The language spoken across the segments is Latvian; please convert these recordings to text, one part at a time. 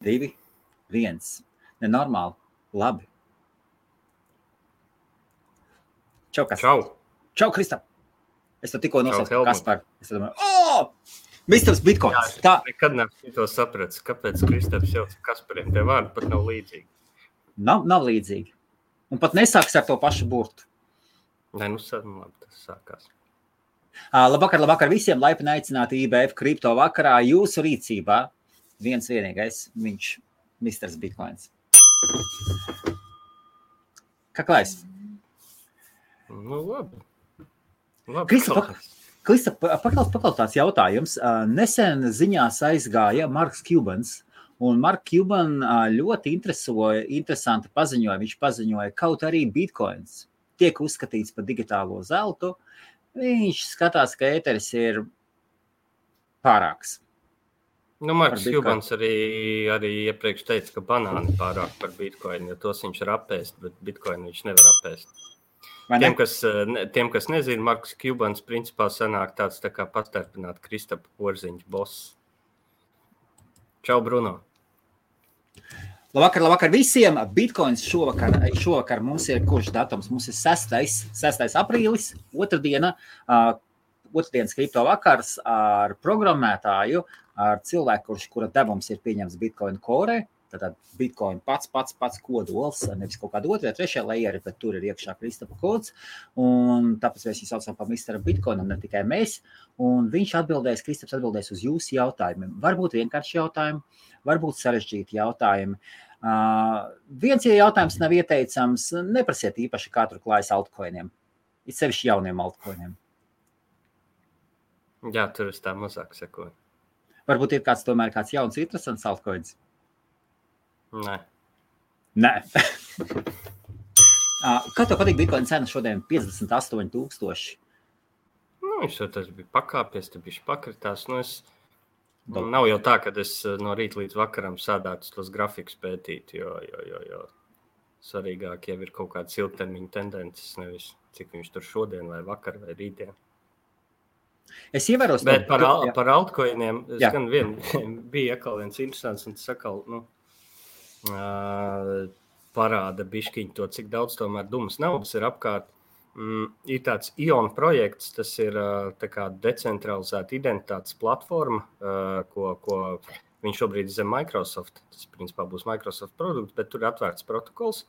2, 1. Nenormāli. Labi. Čau, kas? Čau, Kristap. Es to tikko nosaucu Kaspar. Es domāju, Misters Bitcoins. Jā, nekad neesmu to sapratis, kāpēc Kristaps jau Kaspariem tie vārdi pat nav līdzīgi. Nav līdzīgi. Un pat nesāks ar to pašu burtu. Nē, labi, tas sākās. Labvakar visiem, laipni aicināti IBF kripto vakarā. Jūsu rīcībā viens vienīgais, viņš Misters Bitcoins. Kā klājas? Nu, labi. Krista, paklaus tāds jautājums. Nesen ziņās aizgāja Marks Cubans, un Mark Cuban ļoti interesanti paziņoja. Viņš paziņoja, kaut arī Bitcoins tiek uzskatīts par digitālo zeltu. Viņš skatās, ka ēteris ir pārāks. Nu, Marks Cubans arī iepriekš teica, ka banāni pārāk par Bitcoinu, jo tos viņš var apēst, bet Bitcoinu viņš nevar apēst. Tiem, kas nezina, Marks Cubans principā sanāk tāds tā kā pastarpināt Kristapa Porziņš boss. Čau, Bruno. Labvakar visiem. Bitcoins šovakar mums ir kurš datums? Mums ir 6. aprīlis, otrdienas kripto vakars ar programmētāju, ar cilvēku, kura devums ir pieņemts Bitcoin Core. Tātad Bitcoin pats kodols, nevis kaut kāda otrā, trešā layeri, bet tur ir iekšā Kristapa kods. Un tāpēc mēs viņu saucam par Misteru Bitcoinam, ne tikai mēs. Un Kristaps atbildēs uz jūsu jautājumiem. Varbūt vienkārši jautājumi, varbūt sarežģīti jautājumi. Viens jautājums nav ieteicams, neprasiet īpaši, kā tur klājas altcoiniem. Ir sevišķi jauniem altcoiniem. Jā, tur es tā mazāk sekoju. Varbūt ir tomēr kāds jauns, interesants altcoins. Nē. Kā tev patīk Bitcoin cena šodien 58,000? Viņš tas bija pakāpies, te bišķi pakritās. Nav jau tā, ka es no rīta līdz vakaram sādātu tos grafikus pētīt, jo svarīgāk jau ir kaut kādas ilgtermiņa tendences, nevis cik viņš tur šodien vai vakar vai rītdien. Es ievēros... Bet par altcoiniem, gan bija atkal viens interesants, un tas atkal, parāda bišķiņu to, cik daudz tomēr dumas naudas ir apkārt. Ir tāds ION projekts, tas ir tā kā decentralizēta identitātes platforma, ko viņš šobrīd zem Microsoft, tas principā būs Microsoft produkts, bet tur ir atvērts protokols,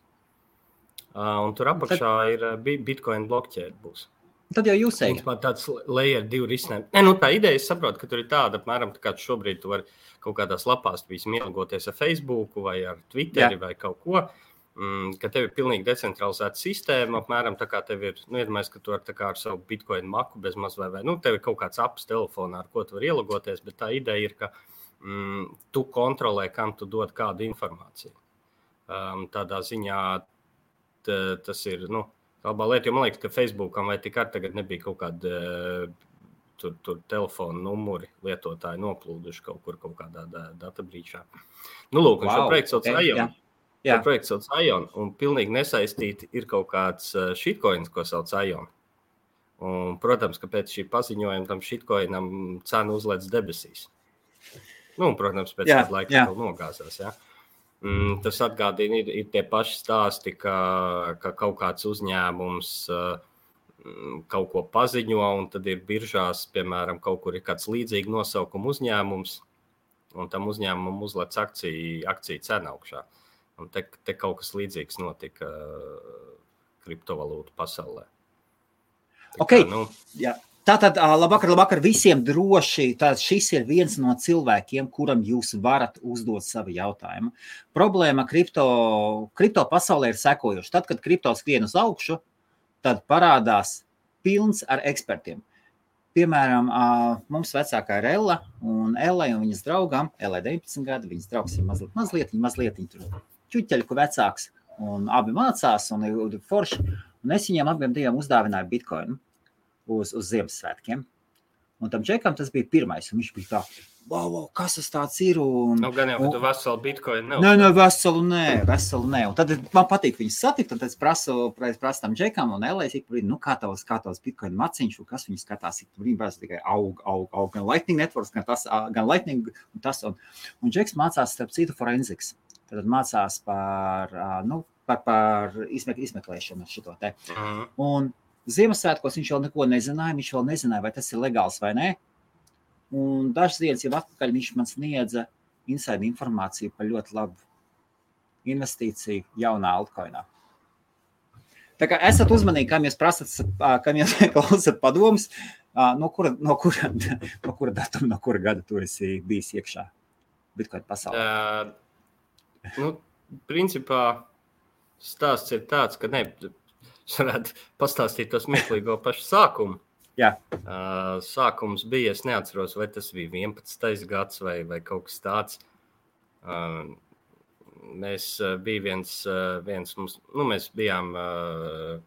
un tur apakšā ir Bitcoin blockchain būs. Tad jau jūs ejat. Tāds layer 2 risinājums. Tā ideja, es saprotu, ka tur ir tāda, apmēram, tā kā šobrīd tu vari kaut kādās lapās ielgoties ar Facebooku vai ar Twitteri vai kaut ko, ka tev ir pilnīgi decentralizēta sistēma, apmēram tā kā tev ir, iedomājies, ka tu ar savu Bitcoin maku bez maz vai tev ir kaut kāds apps telefonā, ar ko tu vari ielogoties, bet tā ideja ir, ka tu kontrolē, kam tu dod kādu informāciju. Tādā ziņā tas ir, labā lieta, jo man liekas, ka Facebookam vai tik ar tagad nebija kaut kāda tur telefona numuri lietotāji noplūduši kaut kādā databrīčā. Lūk, un šo projektu sauc ION. Šo projektu sauc ION, un pilnīgi nesaistīti ir kaut kāds shitcoins, ko sauc ION. Un, protams, ka pēc šī paziņojuma tam shitcoinam cena uzlēc debesīs. Protams, pēc kāda laika vēl nogāzās, Tas atgādina, ir tie paši stāsti, ka kaut kāds uzņēmums kaut ko paziņo, un tad ir biržās, piemēram, kaut kur ir kāds līdzīgi nosaukuma uzņēmums, un tam uzņēmumam uzlec akciju cena augšā. Un te kaut kas līdzīgs notika kriptovalūtu pasaulē. Tātad, labvakar visiem droši. Tātad šis ir viens no cilvēkiem, kuram jūs varat uzdot savu jautājumu. Problēma kripto pasaulē ir sekojoša. Tad, kad kripto skrien uz augšu, tad parādās pilns ar ekspertiem. Piemēram, mums vecākā ir Ella, un Ellai un viņas draugam, Ellai 19 gadi, viņas draugs ir mazliet tur čuķeļku vecāks, un abi mācās, un ir forši. Un es viņiem abiem diviem uzdāvināju Bitcoinu uz Ziemassvētkiem. Un tam džekam tas bija pirmais, un viņš bija tā, wow, kas tas tāds ir? Gan jau, ka tu veselu bitcoinu veselu nē. Un tad man patīk viņus satikt, un tad es prasu tam džekam un Elēs, kā tavs bitcoinu maciņš, un kas viņus skatās, viņi prasa tikai aug, gan Lightning Networks, gan Lightning un tas. Un džeks mācās, starp citu, forensics. Tad mācās par izmeklēšanu šito te. Un Ziemassvētkos viņš vēl neko nezināja, vai tas ir legāls vai nē. Un dažas dienas jau atpakaļ viņš man sniedza inside informāciju par ļoti labu investīciju jaunā altcoinā. Tā kā esat uzmanīgi, kam jūs prasat, kam jūs klausat padomus, no kura datuma, no kura gada tu esi bijis iekšā Bitcoin pasaulē? Principā stāsts ir tāds, ka es varētu pastāstīt to smieklīgo pašu sākumu. Jā. Sākums bija, es neatceros, vai tas bija 11. gads vai kaut kas tāds. Mēs bijām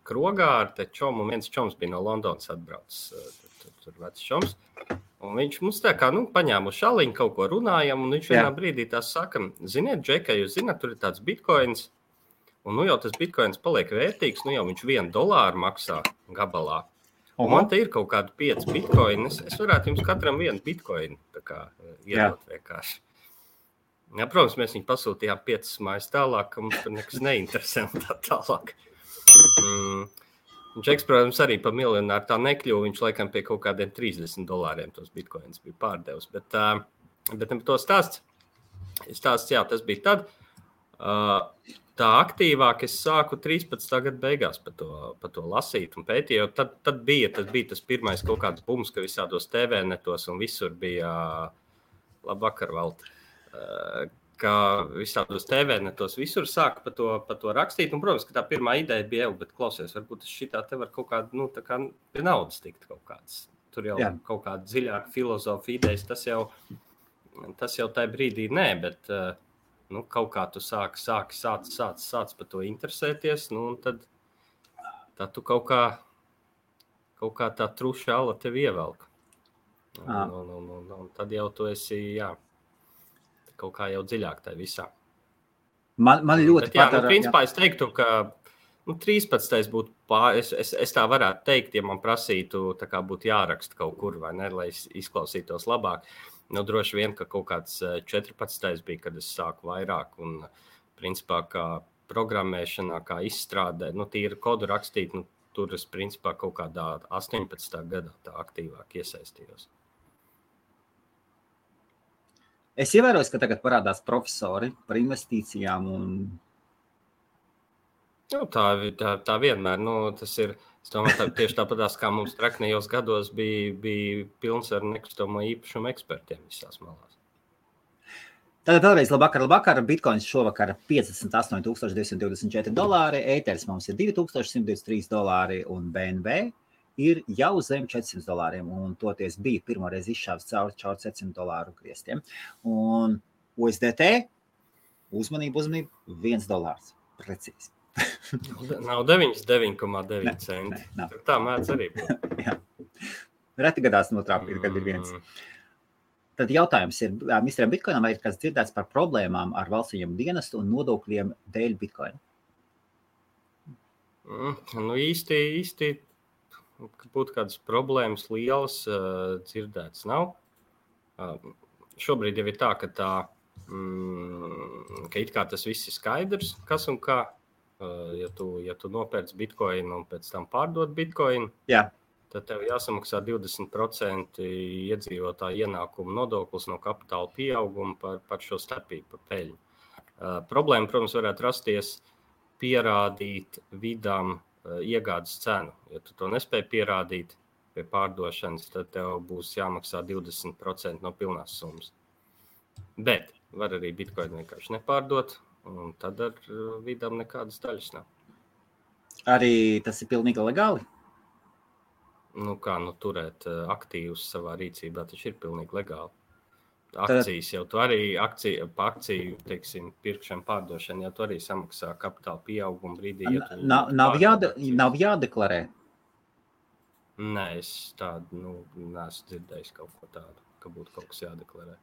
krogā ar te čomu, un viens čoms bija no Londonas atbraucis, tur vecs čoms. Un viņš mums tā kā, paņēma uz šaliņu, kaut ko runājam, un viņš vienā brīdī tā saka, ziniet, Džekai, jūs zināt, tur ir tāds bitcoins, un jau tas bitcoins paliek vērtīgs, jau viņš $1 maksā gabalā. Un man te ir kaut kādi 5 bitcoini, es varētu jums katram vienu bitcoinu tā kā iedot vienkārši. Jā, protams, mēs viņu pasūtījām 5 mājas tālāk, ka mums tur nekas neinteresē un tā tālāk. Džeks, protams, arī pa miljonāru tā nekļuva, viņš laikam pie kaut kādiem $30 tos bitcoins bija pārdevis. Bet to stāsts, jā, tas bija tad. Tā aktīvāk es sāku 13. gada beigās par to lasīt un pētīt, jo tad bija tas pirmais kaut kāds bums, ka visādos TV netos un visur bija labvakar valti. Ka visādos TV netos visur sāka par to rakstīt. Un, protams, ka tā pirmā ideja bija, bet klausies, varbūt es šitā te var kaut kādu, tā kā pie naudas tikt kaut kāds. Tur jau kaut kāda dziļāka filozofija idejas, tas jau tajā brīdī nē, bet kaut kā tu sāc par to interesēties, un tad tu kaut kā tā truša ala tevi ievelk. Un tad jau tu esi, kaut kā jau dziļāk tajā visā. Man ļoti patīk. Principā es teiktu, ka 13. būtu es tā varētu teikt, ja man prasītu, tā kā būtu jāraksta kaut kur, vai ne, lai izklausītos labāk. Droši vien, ka kaut kāds 14. bija, kad es sāku vairāk, un principā kā programmēšanā, kā izstrādē, tīri kodu rakstīt, tur es principā kaut kādā 18. gadā tā aktīvāk iesaistījos. Es ievēroju, ka tagad parādās profesori par investīcijām un... Tā vienmēr, tas ir, es domāju, tieši tāpatās, kā mums traknējos gados bija pilns ar nekustamo īpašumu ekspertiem visās malās. Tātad vēlreiz labvakar, bitcoins šovakar $58,224, ēters mums ir $2,123 un BNB ir jau zem $400, un toties bija pirmoreiz izšāvis caur $400 griestiem. Un USDT, uzmanību, $1, precīzi. Nav 9,9 centi. Tā mēdz arī būt. Jā. Reti gadās notrāpīt, kad ir viens. Tad jautājums ir, misteram Bitcoinam, vai ir kāds dzirdēts par problēmām ar valsts ieņēmumu dienestu un nodokļiem dēļ Bitcoina? Īsti, ka būtu kādas problēmas lielas dzirdēts nav. Šobrīd jau ir tā, ka it kā tas viss ir skaidrs, kas un kā. Ja tu nopērc Bitcoinu un pēc tam pārdod Bitcoinu, tad tev jāsamaksā 20% iedzīvotāju ienākumu nodoklis no kapitāla pieauguma par šo starpību, par peļņu. Problēma, protams, varētu rasties pierādīt vidām iegādes cenu. Ja tu to nespēj pierādīt pie pārdošanas, tad tev būs jāmaksā 20% no pilnās summas. Bet var arī Bitcoinu vienkārši nepārdot, un tad ar vidām nekādas daļas nav. Arī tas ir pilnīgi legāli? Turēt aktīvus savā rīcībā, taču ir pilnīgi legāli. Akcijas jau tu arī, pa akciju, teiksim, pirkšanu, pārdošanu, jau tu arī samaksā kapitāla pieauguma brīdī. Nav jādeklarē? Nē, es tādu, neesmu dzirdējis kaut ko tādu, ka būtu kaut kas jādeklarē.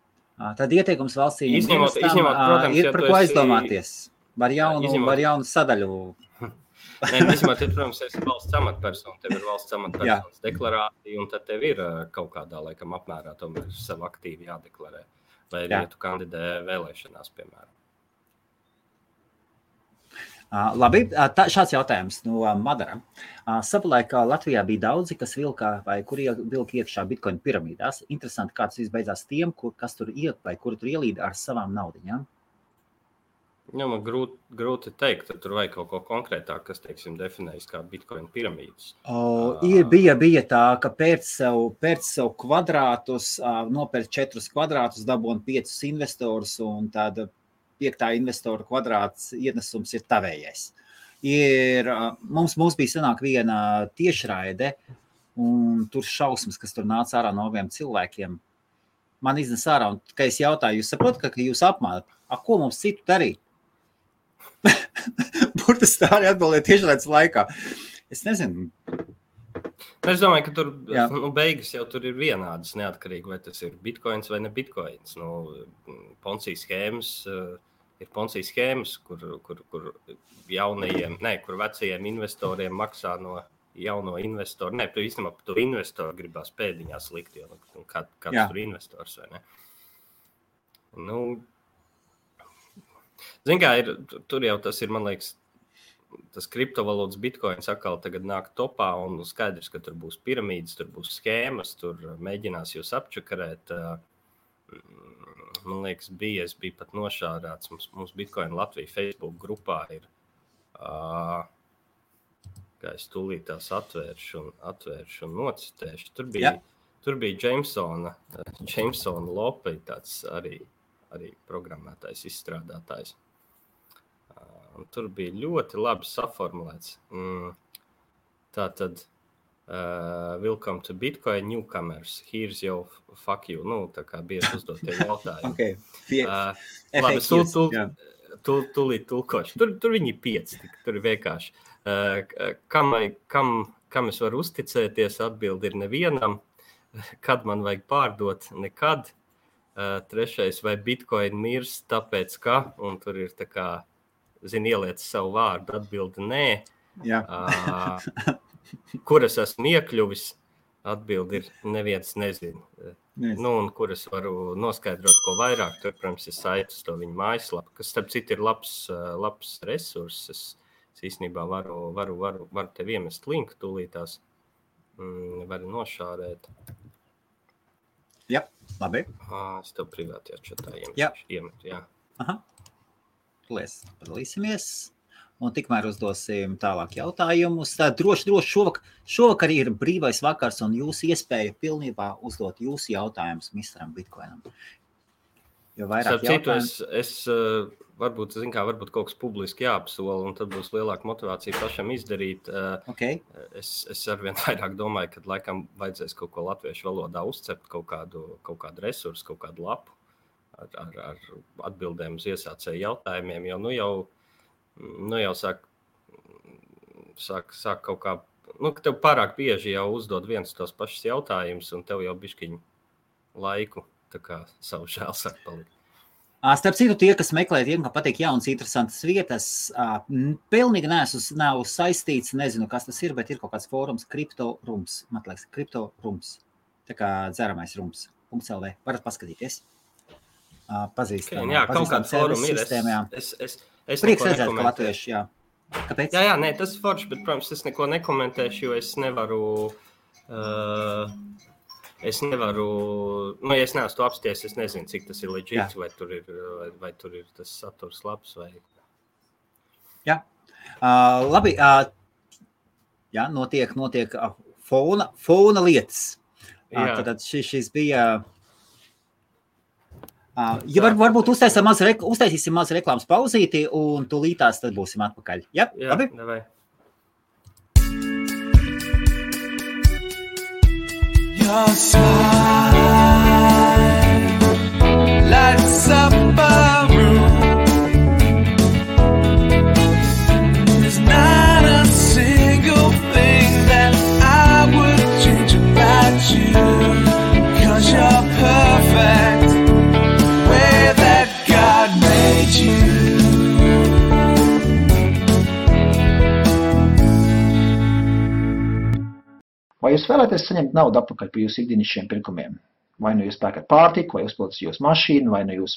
Tad ieteikums valsts Izņemot, protams, ir par ko aizdomāties. Var jaunu sadaļu. Nē, izņemot, protams, esi valsts amatpersona, tev ir valsts amatpersonas deklarācija, un tad tev ir kaut kādā laikam apmērā tomēr sev aktīvi jādeklarē. Vai ja tu kandidē vēlēšanās, piemēram. Labi, šāds jautājums no Madara. Savulaik Latvijā bija daudzi, kas vilka vai kuri vilka iekšā Bitcoin piramīdās. Interesanti, kāds viss beidzās tiem, kas tur iek vai kuri tur ielīda ar savām naudiņām. Jā, man grūti teikt, tur vajag kaut ko konkrētāk, kas, teiksim, definējas kā Bitcoin piramīdas. Bija tā, ka pēc sev kvadrātus, nopērk 4 kvadrātus, dabūn 5 investorus un tāda 5. investora kvadrāts ienesums ir tavējais. Mums bija sanāk viena tiešraide, un tur šausmas, kas tur nāca ārā no abiem cilvēkiem. Man iznes ārā, un kad es jautāju, jūs saprotat, ka jūs apmānat? Ko mums citu darīt? Burtiski tā arī atbildēja tiešraides laikā. Es nezinu. Es domāju, ka tur beigas jau tur ir vienādas, neatkarīgi, vai tas ir bitcoins vai ne bitcoins. Ponzi schēmas ir Ponzi schēmas, kur jaunajiem, kur vecajiem investoriem maksā no jauno investoru. Nē, īstenībā par to investoru gribās pēdiņās likt, jo kāds tur investors vai ne. Zin kā, tur jau tas ir, man liekas, tas kriptovalūtas bitcoins atkal tagad nāk topā un skaidrs, ka tur būs piramīdas, tur būs schēmas, tur mēģinās jūs apčakarēt. Man liekas, es biju pat nošādāts. Mums Bitcoin Latvija Facebook grupā ir, kā es tūlīt tās atvēršu un nocitēšu. Tur bija Jamesona Lope, tāds arī programmētājs, izstrādātājs. Un tur bija ļoti labi saformulēts. Tātad, welcome to Bitcoin newcomers. Here's your fuck you. Tā kā bieži uzdot tie jautājumi. Labi, tūlīt tulkošu. Tur viņi 5, tur ir vienkārši. Kam es varu uzticēties, atbildi ir nevienam. Kad man vajag pārdot, nekad. 3. vai Bitcoin mirs, tāpēc ka, un tur ir tā kā, ieliec savu vārdu, atbildi nē. Kur es esmu iekļuvis, atbildi ir neviens nezinu. Un kur es varu noskaidrot, ko vairāk, tur, protams, ir saiti uz to viņu mājaslapu, kas, starp citu, ir labs resurss. Es īstenībā varu tev iemest linku tūlītās, varu nošārēt. Jā, labi. Es tev privātajā čatā iemetu, jā. Aha. Lies, padalīsimies. Un tikmēr uzdosim tālāk jautājumus. Tā droši šovakar ir brīvais vakars un jūsu iespēja pilnībā uzdot jūsu jautājumus Misteram Bitcoinam. Jo vairāk jautājumus... Es varbūt kaut kas publiski jāapsola, un tad būs lielāka motivācija pašam izdarīt. Es arvien vairāk domāju, ka laikam vajadzēs kaut ko latviešu valodā uzcept, kaut kādu resursu, kaut kādu lapu ar atbildēm uz iesācēju jautājumiem, jo jau sāk kaut kā, ka tev pārāk bieži jau uzdod viens tos pašus jautājumus, un tev jau bišķiņ laiku tā kā savu žēl sāk palikt. Starp citu, tie, kas meklē, tiem, ka patīk jaunas, interesantas vietas, pilnīgi nav saistīts, nezinu, kas tas ir, bet ir kaut kāds fórums Crypto-Rums, man liekas, Crypto-Rums, tā kā dzeramais rums, .lv, varat paskatīties. Pazīstam. Jā, kaut kāds fórums ir. Es prieks redzēt, ka latvieši, jā. Kāpēc? Jā, nē, tas ir forši, bet, protams, es neko nekomentēšu, jo es nevaru, ja es neesmu to apsties, es nezinu, cik tas ir legit, vai tur ir tas saturs labs, vai... Jā, labi, jā, notiek fona lietas. Tad šis bija... Ja varbūt uztaisīsim maz reklāmas pauzīti un tūlītās tad būsim atpakaļ. Jā, labi? Davai. Your smile lights up a room. There's not a single thing that I would change. Vai jūs vēlaties saņemt naudu atpakaļ par jūsu ikdienišķiem pirkumiem? Vai nu jūs pērkat pārtiku, vai uzpildat jūsu mašīnu, vai nu jūs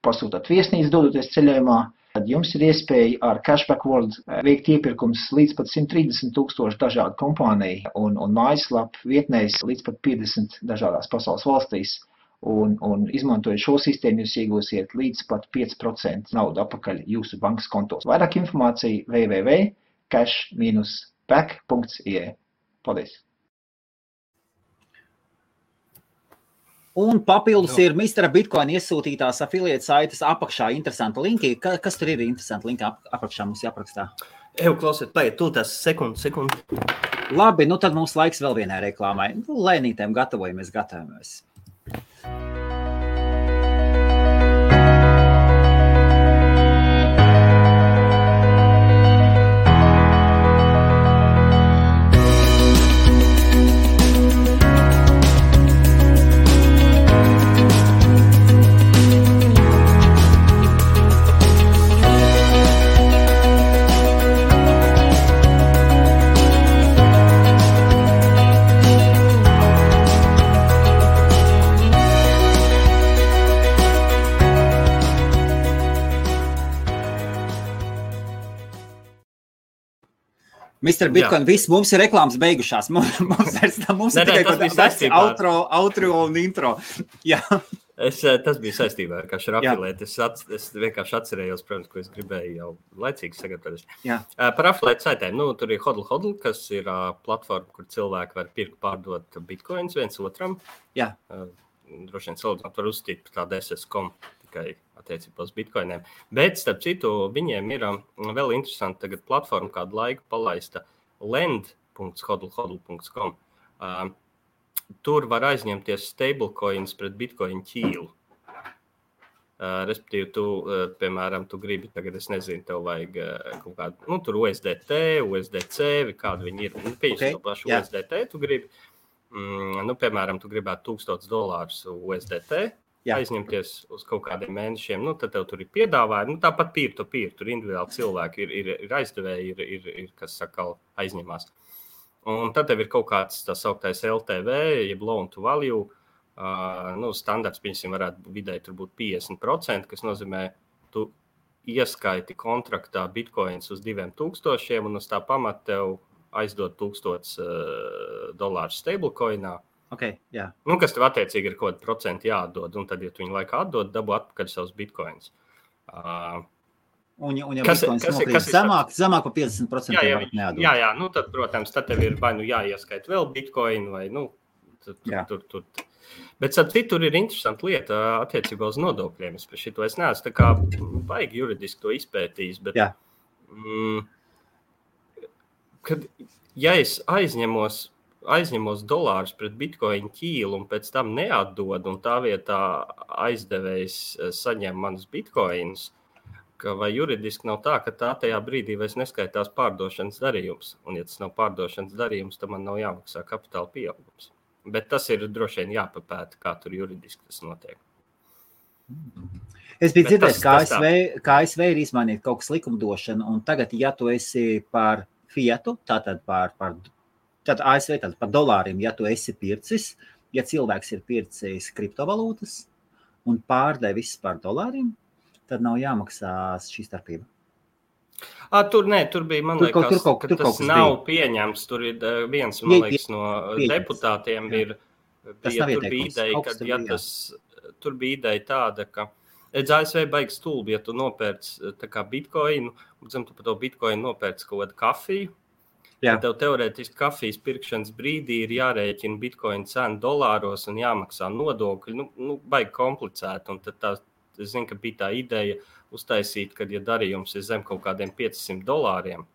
pasūtat viesnīcu dodoties ceļojumā, tad jums ir iespēja ar Cashback World veikt iepirkums līdz pat 130,000 dažādu kompāniju un mājaslapu vietnēs līdz pat 50 dažādās pasaules valstīs. Un izmantojot šo sistēmu, jūs iegūsiet līdz pat 5% naudu atpakaļ jūsu bankas kontos. Vairāk informācija www.cash-back.ie. Paldies! Un papildus ir Mr. Bitcoin iesūtītās affiliate saites apakšā interesanta linki. Kas tur ir interesanti linki apakšā mums jāaprakstā? Klausiet, paiet, tūlīt sekundi. Labi, nu tad mums laiks vēl vienai reklāmai. Lēnītēm gatavojamies. Mr. Bitcoin, viss mums ir reklāmas beigušās. Mums ir tikai outro un intro. Jā. Tas bija saistībā ar affiliate. Es vienkārši atcerējos, protams, ko es gribēju jau laicīgi sagatavoties. Par affiliate saitēm. Tur ir Hodl, kas ir platforma, kur cilvēki var pirkt pārdot bitcoins viens otram. Jā. Droši vien salīdzināt var uzstīt par tādu SS.com tikai attiecībā uz bitcoiniem. Bet, starp citu, viņiem ir vēl interesanti tagad platforma kādu laiku palaista lend.hodl.com. Tur var aizņemties stablecoins pret bitcoin ķīlu. Respektīvi, piemēram, tu gribi, tagad es nezinu, tev vajag kaut kādu, tur USDT, USDC, vai kādu viņi ir. Pieņemsim to pašu USDT, tu gribi. Piemēram, tu gribētu $1,000 USDT aizņemties uz kaut kādiem mēnešiem, tad tev tur ir piedāvājumi, tāpat peer-to-peer, tur individuāli cilvēki ir aizdevēji, ir kas saka, aizņemās. Un tad tev ir kaut kāds tā sauktais LTV, jeb loan to value, standarts, piemēram, varētu vidēji tur būt 50%, kas nozīmē, tu ieskaiti kontraktā bitcoins uz 2,000 un uz tā pamata tev aizdod $1,000 stablecoinā. Okay, jā. Kas tev attiecīgi ir kaut kāda procenti jāatdod, un tad, ja tu viņu laikā atdod, dabū atpakaļ savus bitcoins. Un ja bitcoins nokrīt zemāk par 50% neatdod. Jā, tad, protams, tad tev ir vai jāieskait vēl bitcoin, vai tur. Bet tur ir interesanta lieta attiecībā uz nodokļiem. Es par šito es neesmu tā kā baigi juridiski to izpētījis, bet kad, ja es aizņemos dolārus pret bitcoin ķīlu un pēc tam neatdod, un tā vietā aizdevējs saņem manus bitcoins, vai juridiski nav tā, ka tā tajā brīdī vairs neskaitās pārdošanas darījums. Un, ja tas nav pārdošanas darījums, tad man nav jāmaksā kapitāla pieaugums. Bet tas ir droši vien jāpapēta, kā tur juridiski tas notiek. Es biju dzirdējis, ka ASV ir izmainīt kaut kas likumdošana, un tagad, ja tu esi par fietu, tātad Tad ASV par dolāriem, ja tu esi pircis, ja cilvēks ir pircis kriptovalūtas un pārdevis par dolāriem, tad nav jāmaksā šī starpība. Tur bija, man liekas, ka tas nav pieņemts. Tur ir viens, man liekas, no deputātiem tur bija ideja tāda, ka ASV baigs stulbi, ja tu nopērc tā kā bitcoinu, un tu par to bitcoinu nopērc kaut kādu kafiju. Ja tev teorētiski kafijas pirkšanas brīdī ir jārēķina bitcoin cena dolāros un jāmaksā nodokļi, baigi komplicēti. Un tad es zinu, ka bija tā ideja uztaisīt, kad ja darījums ir zem kaut kādiem $500,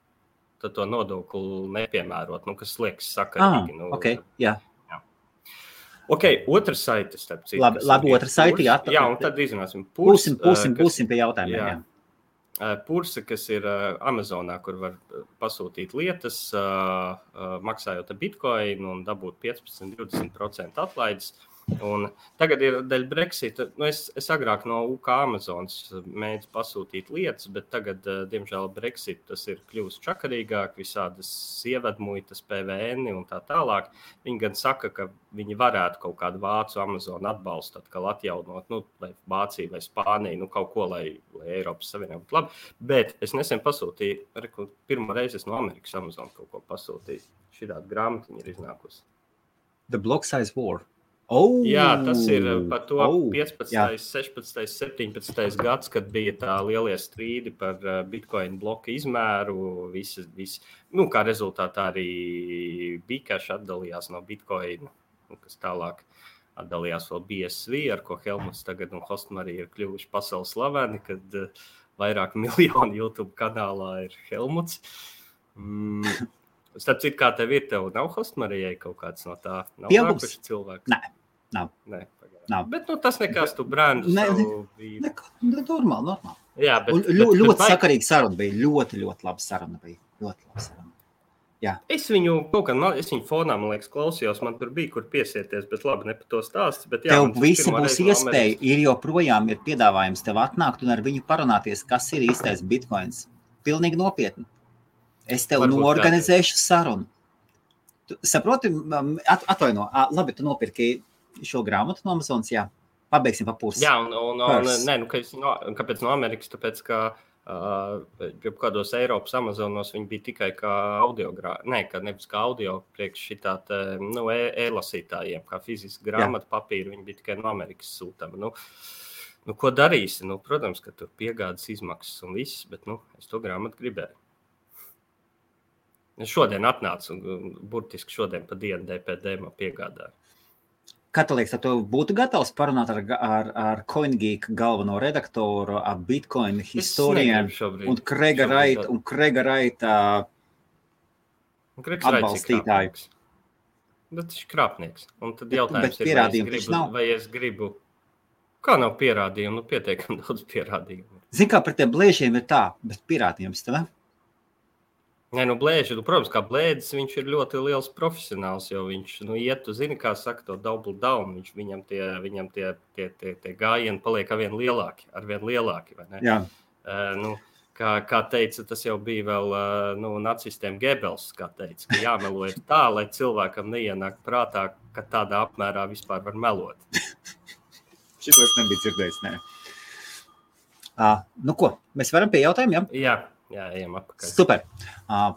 tad to nodokli nepiemērot, kas liekas sakarīgi. Okay, jā. Otrs saites, starp citu. Labi, otrs saiti, jā. Jā, un tad izrunāsim. Būsim pie jautājumiem, jā. Purse, kas ir Amazonā, kur var pasūtīt lietas, maksājot ar bitcoin un dabūt 15-20% atlaides. Un tagad ir dēļ Brexita. Nu es agrāk no UK Amazonas mēģinu pasūtīt lietas, bet tagad, diemžēl, Brexit tas ir kļuvis čakarīgāk, visādas ievedmuitas, PVN un tā tālāk. Viņi gan saka, ka viņi varētu kaut kādu vācu Amazonu atbalstu atkal atjaunot, nu, vai Vācija vai Spānija, nu, kaut ko, lai Eiropas Savienība būtu labi. Bet es nesen pasūtīju, pirmo reizi es no Amerikas Amazon kaut ko pasūtīju. Šitāda grāmatiņa ir iznākusi. The Block Size War. Oh, jā, tas ir par to 15., 16., 17. gads, kad bija tā lielie strīdi par Bitcoin bloku izmēru. Nu, kā rezultātā arī Bcash atdalījās no Bitcoin, kas tālāk atdalījās vēl BSV, ar ko Helmuts tagad un Hostmari ir kļuvuši pasaules slaveni, kad vairāk miljonu YouTube kanālā ir Helmuts. Starp citu, kā tev ir, tev nav Hostmarijai kaut kāds no tā? Nav nākuši cilvēks? Nav. Bet tas nekas, tu brāņu savu bija. Normāli. Jā, bet ļoti sakarīga saruna bija. Ļoti laba saruna bija. Ļoti laba saruna. Jā. Es viņu fonā, man liekas, klausījos, man tur bija, kur piesieties, bet labi, ne par to stāsts. Bet jā, tev visi būs iespēja, ir joprojām ir piedāvājums tev atnākt un ar viņu parunāties, kas ir īstais Bitcoins. Pilnīgi nopietni. Es tev norganizēšu sarunu. Tu saproti, atvaino, labi, tu nopirki šo grāmatu no Amazonas, jā. Pabeigsim pa pusi. Jā, kāpēc no Amerikas? Tāpēc, ka kādos Eiropas Amazonos viņi bija tikai kā audio, nevis kā audio priekš šitā e-lasītājiem, kā fiziski grāmatu papīru, viņi bija tikai no Amerikas sūtama. Nu, ko darīsi? Nu, protams, ka tur piegādas izmaksas un viss, bet, es to grāmatu gribēju. Es šodien atnācu un burtiski šodien pa dienu DPD man piegādāju. Kā tu liekas, tu būtu gatavs parunāt ar CoinGeek galveno redaktoru, ar Bitcoin historienu un Krega Raita atbalstītāju? Bet viņš ir krāpnieks. Un tad jautājums ir, vai es gribu... Kā nav pierādījumu? Pietiekami daudz pierādījumu. Zini, kā par tiem blēžiem ir tā, bet pierādījums tev? Nē, blēži, protams, kā blēdis, viņš ir ļoti liels profesionāls, jo viņš, iet, tu zini, kā saka to double down, viņam tie gājieni paliek arvien lielāki, vai ne? Jā. Kā teica, tas jau bija vēl, nacistiem Gebels, kā teica, ka jāmelo ir tā, lai cilvēkam neienāk prātā, ka tādā apmērā vispār var melot. Šito es nebiju dzirdējis, nē. Ko, mēs varam pie jautājumiem, jā? Jā, ejam apakaļ. Super.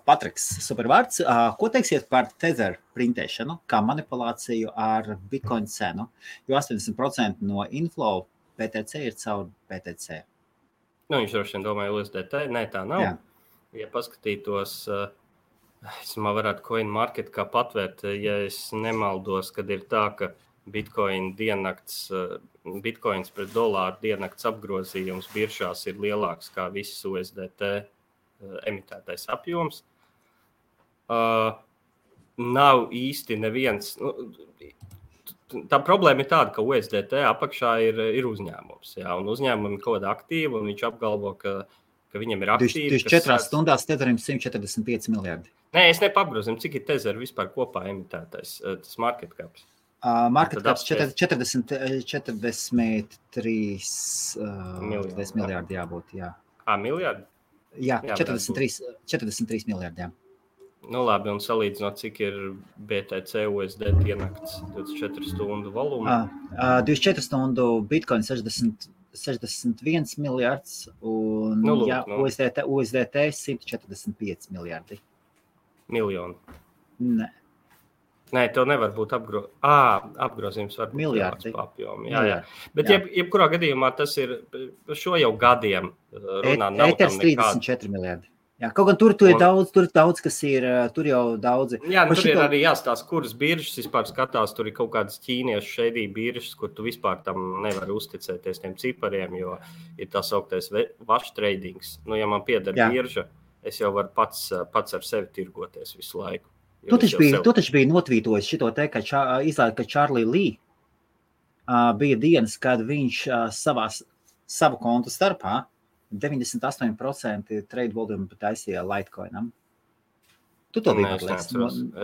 Patriks, super vārds. Ko teiksiet par Tether printēšanu, kā manipulāciju ar Bitcoin cenu? Jo 80% no inflow PTC ir caur PTC. Viņš droši vien domāja USDT. Nē, tā nav. Jā. Ja paskatītos, es varētu CoinMarket kā patvērt, ja es nemaldos, kad ir tā, ka Bitcoins pret dolāru diennakts apgrozījums biržās ir lielāks kā visas USDT emitētais apjoms. Nav īsti neviens. Tā problēma ir tāda, ka USDT apakšā ir uzņēmums. Jā, un uzņēmumi ir kaut kāda aktīva, un viņš apgalvo, ka viņam ir aktīvi. 24 stundās Tetherim 145 miljardi. Nē, es nepapgrozinu, cik ir Tether vispār kopā emitētais, tas market caps. Market caps 43 miljardi jābūt, jā. Miljardi? Jā, 43 miljardi, jā. Labi, un salīdzinot, cik ir BTC USD ienakts 24 stundu volumā? 24 stundu Bitcoin 61 miljards un USDT 145 miljardi. Miljoni? Nē, tev nevar būt apgrozījums var būt miljardi. Papjomi. Jā. Bet jebkurā gadījumā tas ir šo jau gadiem runā. Eters 34 miljardi. Jā, kaut gan tur ir daudz, kas ir, tur jau daudzi. Jā, tur ir arī jāstāsta, kuras biržas vispār skatās, tur ir kaut kādas ķīniešu šeidī biržas, kur tu vispār tam nevar uzticēties tiem cipariem, jo ir tā sauktais watch tradings. Ja man pieder birža, es jau varu pats ar sevi tirgoties visu laiku. Tu taču biji notvītojis šito te, ka izlēja, ka Charlie Lee bija dienas, kad viņš savu kontu starpā 98% trade volume taisīja Litecoinam. Tu to biji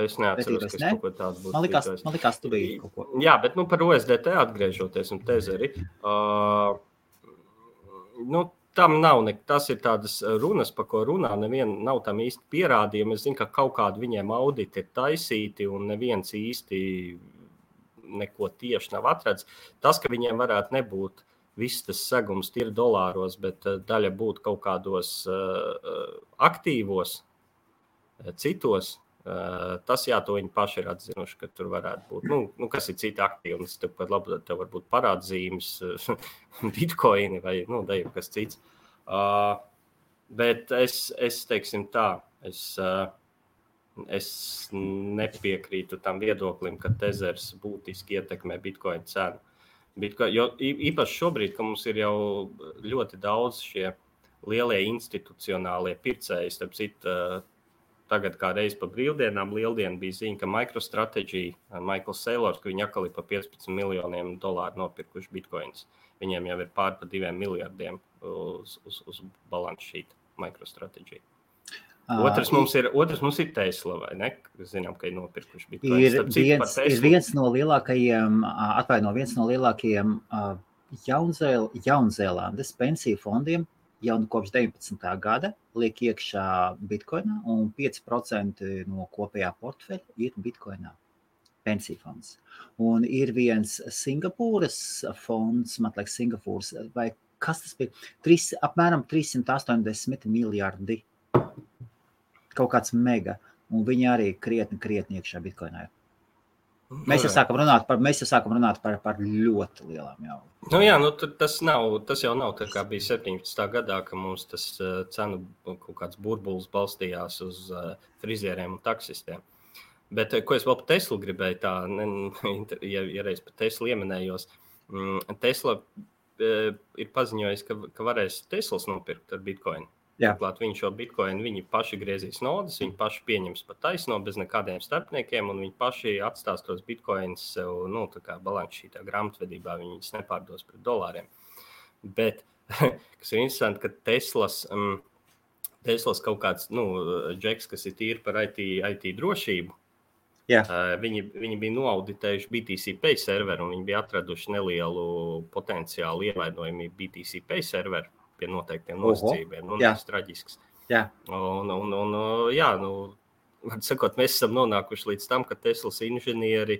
Es neatceros, ka kaut ko tādu būtu tweetojis. Man likās, tu biji kaut ko. Jā, bet par OSDT atgriežoties un tezeri, tam nav tas ir tādas runas, par ko runā, nav tam īsti pierādījumi. Es zinu, ka kaut kādi viņiem auditi ir taisīti un neviens īsti neko tieši nav atrads. Tas, ka viņiem varētu nebūt viss tas segums ir dolāros, bet daļa būtu kaut kādos aktīvos, citos, tas to viņi paši ir atzinuši, ka tur varētu būt. Kas ir citi aktīvi? Tev var būt parādzīmes, bitcoini vai kas cits. Bet es teiksim tā, es nepiekrītu tam viedoklim, ka tezers būtiski ietekmē bitcoin cenu. Jo īpaši šobrīd, ka mums ir jau ļoti daudz šie lielie institucionālie pircēji, starp citu, tagad kā reiz pa brīvdienām, lieldiena bija ziņa, ka MicroStrategy, Michael Saylors, ka viņi atkal ir pa $15 miljoniem nopirkuši bitcoins. Viņiem jau ir pār pa 2 miljardiem uz balance sheet MicroStrategy. Otrs mums ir Tesla, vai ne? Zinām, ka ir nopirkuši bitcoins. Ir viens no lielākajiem Jaunzēlandes pensiju fondiem jau kopš 19. gada liek iekšā bitcoinā, un 5% no kopējā portfeļa ir bitcoinā. Pensiju fonds. Un ir viens Singapūras fonds, man liekas Singapūras, vai kas tas bija? Apmēram 380 miljardi. Kaut kāds mega, un viņi arī krietni iekšā bitcoinā. Mēs jau sākam runāt par ļoti lielām jau. Tas jau nav tā kā bija 17. gadā, ka mums tas cenu kaut kāds burbulis balstījās uz frizieriem un taksistiem. Bet, ko es vēl par Teslu gribēju ja reiz par Teslu ieminējos, Tesla ir paziņojis, ka varēs Teslas nopirkt ar bitcoinu. Turklāt viņi šo bitcoinu, viņi paši griezīs naudas, viņi paši pieņems pa taisno bez nekādiem starpniekiem, un viņi paši atstās tos bitcoins sev, tā kā balance sheetā grāmatvedībā, viņus nepārdos pret dolāriem. Bet, kas ir interesanti, ka Teslas kaut kāds, džeks, kas ir tīri par IT drošību, viņi bija noauditējuši BTC Pay serveru, un viņi bija atraduši nelielu potenciālu ievainojumību BTC Pay serveru pie noteiktiem nosacījumiem. Tas ir traģisks. Var sakot, mēs esam nonākuši līdz tam, ka Teslas inženieri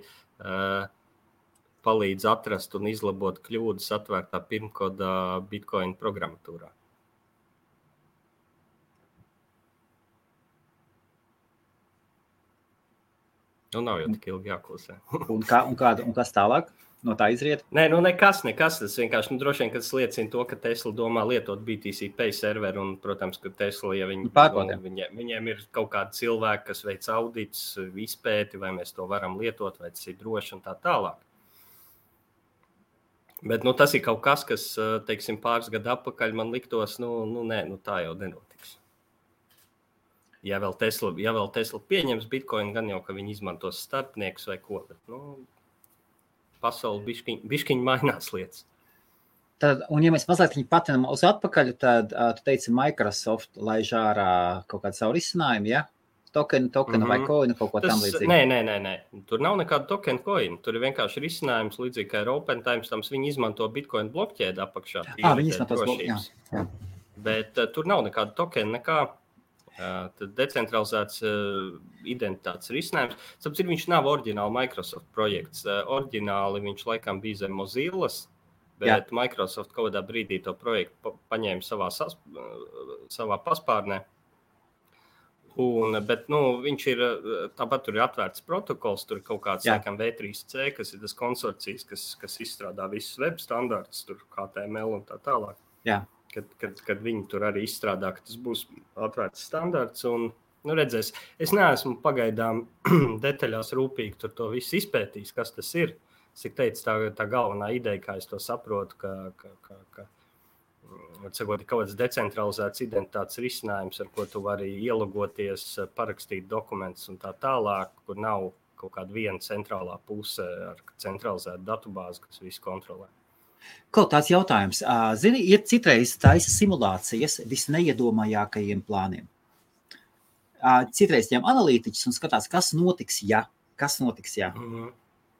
palīdz atrast un izlabot kļūdas atvērtā pirmkodā Bitcoin programmatūrā. Nav jau tik ilgi jāklusē. Un kas tālāk? No tā izriet? Nē, nekas. Tas vienkārši droši vien, ka tas liecina to, ka Tesla domā lietot BTC Pay serveru, un, protams, ka Tesla, ja viņiem ir kaut kādi cilvēki, kas veic audits, izpēti, vai mēs to varam lietot, vai tas ir droši un tā tālāk. Bet, tas ir kaut kas, kas, teiksim, pāris gadu atpakaļ man liktos, tā jau nenotiks. Ja vēl Tesla pieņems Bitcoin, gan jau, ka viņi izmantos starpniekus vai ko, bet, pasauli biškiņ mainās lietas. Tad, un ja mēs mazliet viņu patinam uz atpakaļ, tad tu teici Microsoft laiž ārā kaut kādu savu risinājumu, ja? Tokenu vai coinu, kaut ko tam līdzīgi. Nē. Tur nav nekāda tokenu coinu. Tur ir vienkārši risinājums līdzīgi kā ar Open Timestamps. Viņi izmanto Bitcoin blokķēdi apakšā. Viņi izmanto drošības. Bet tur nav nekāda tokena, nekā. Tad decentralizēts identitātes risinājums. Tāpēc viņš nav oriģināli Microsoft projekts. Oriģināli viņš laikam bija zem Mozillas, bet Microsoft kaut kādā brīdī to projektu paņēma savā paspārnē. Bet viņš ir, tāpat tur ir atvērts protokols, tur ir kaut kāds laikam V3C, kas ir tas konsorcijas, kas izstrādā visus web standartus, tur HTML un tā tālāk. Kad viņi tur arī izstrādā, ka tas būs atvērts standarts. Un, redzēs, es neesmu pagaidām detaļās rūpīgi tur to visu izpētījis, kas tas ir. Es teicu, tā galvenā ideja, kā es to saprotu, ka kaut kāds decentralizēts identitātes risinājums, ar ko tu vari ielogoties, parakstīt dokumentus un tā tālāk, kur nav kaut kāda viena centrālā puse ar centralizētu datubāzi, kas visu kontrolē. Kaut tāds jautājums. Zini, ir citreiz taisa simulācijas visneiedomājākajiem plāniem. citreiz tiem analītiķus un skatās, kas notiks, ja.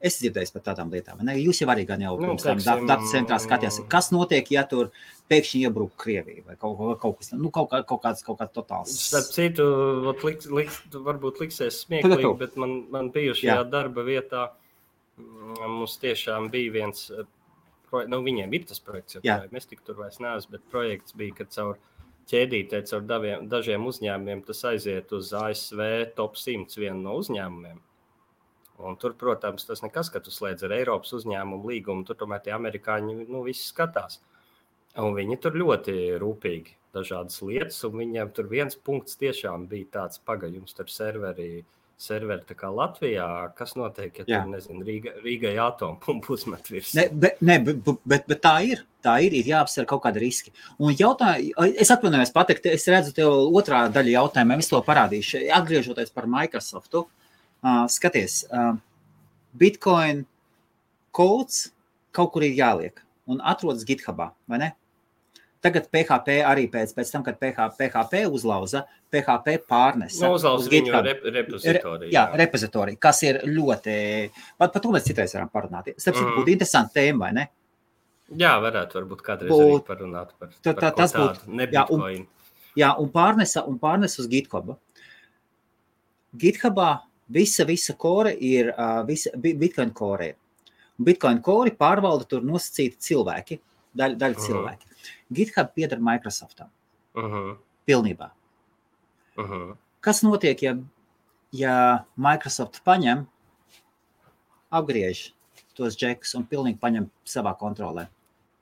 Es dzirdēju par tādām lietām. Ne? Jūs jau arī gan jau pirms tam datu centrā skatījās, kas notiek, ja tur pēkšņi iebruk Krievija vai kaut kas, kaut kāds totāls. Starp citu, varbūt liksies smieklīgi, bet man bijušajā darba vietā mums tiešām bija viens, viņiem ir tas projekts, mēs tik tur vairs neesam, bet projekts bija, ka caur ķēdītē, caur dažiem uzņēmumiem tas aiziet uz ASV top 100 vienu no uzņēmumiem. Un tur, protams, tas nekas, ka tu slēdz ar Eiropas uzņēmumu līgumu, tur tomēr tie amerikāņi, visi skatās. Un viņi tur ļoti rūpīgi dažādas lietas, un viņiem tur viens punkts tiešām bija tāds pagaļums tur serveri tā kā Latvijā, kas notiek, ja tur, nezinu, Rīgai atompumpu uzmet virs. Bet tā ir jāapsver kaut kādi riski. Un es atvainojos pateikt, es redzu tev otrā daļa jautājumā, es to parādīšu, atgriežoties par Microsoftu. Skaties, Bitcoin codes kaut kur ir jāliek un atrodas GitHubā, vai ne? Tagad PHP arī pēc tam, kad PHP uzlauza, PHP pārnesa. Uzlauza viņu repozitoriju. Repozitoriju, kas ir ļoti... Par to mēs citreiz varam parunāt. Starpēc būtu interesanti tēma, vai ne? Jā, varbūt kādreiz arī parunāt par tādu, ne Bitcoin. Un pārnesa uz GitHubu. GitHubā visa kore ir Bitcoin kore. Bitcoin kori pārvalda tur nosacīti cilvēki, daļa cilvēki. GitHub pieder Microsoftam. Pilnībā. Kas notiek, ja Microsoft paņem, apgriež tos džekus un pilnīgi paņem savā kontrolē?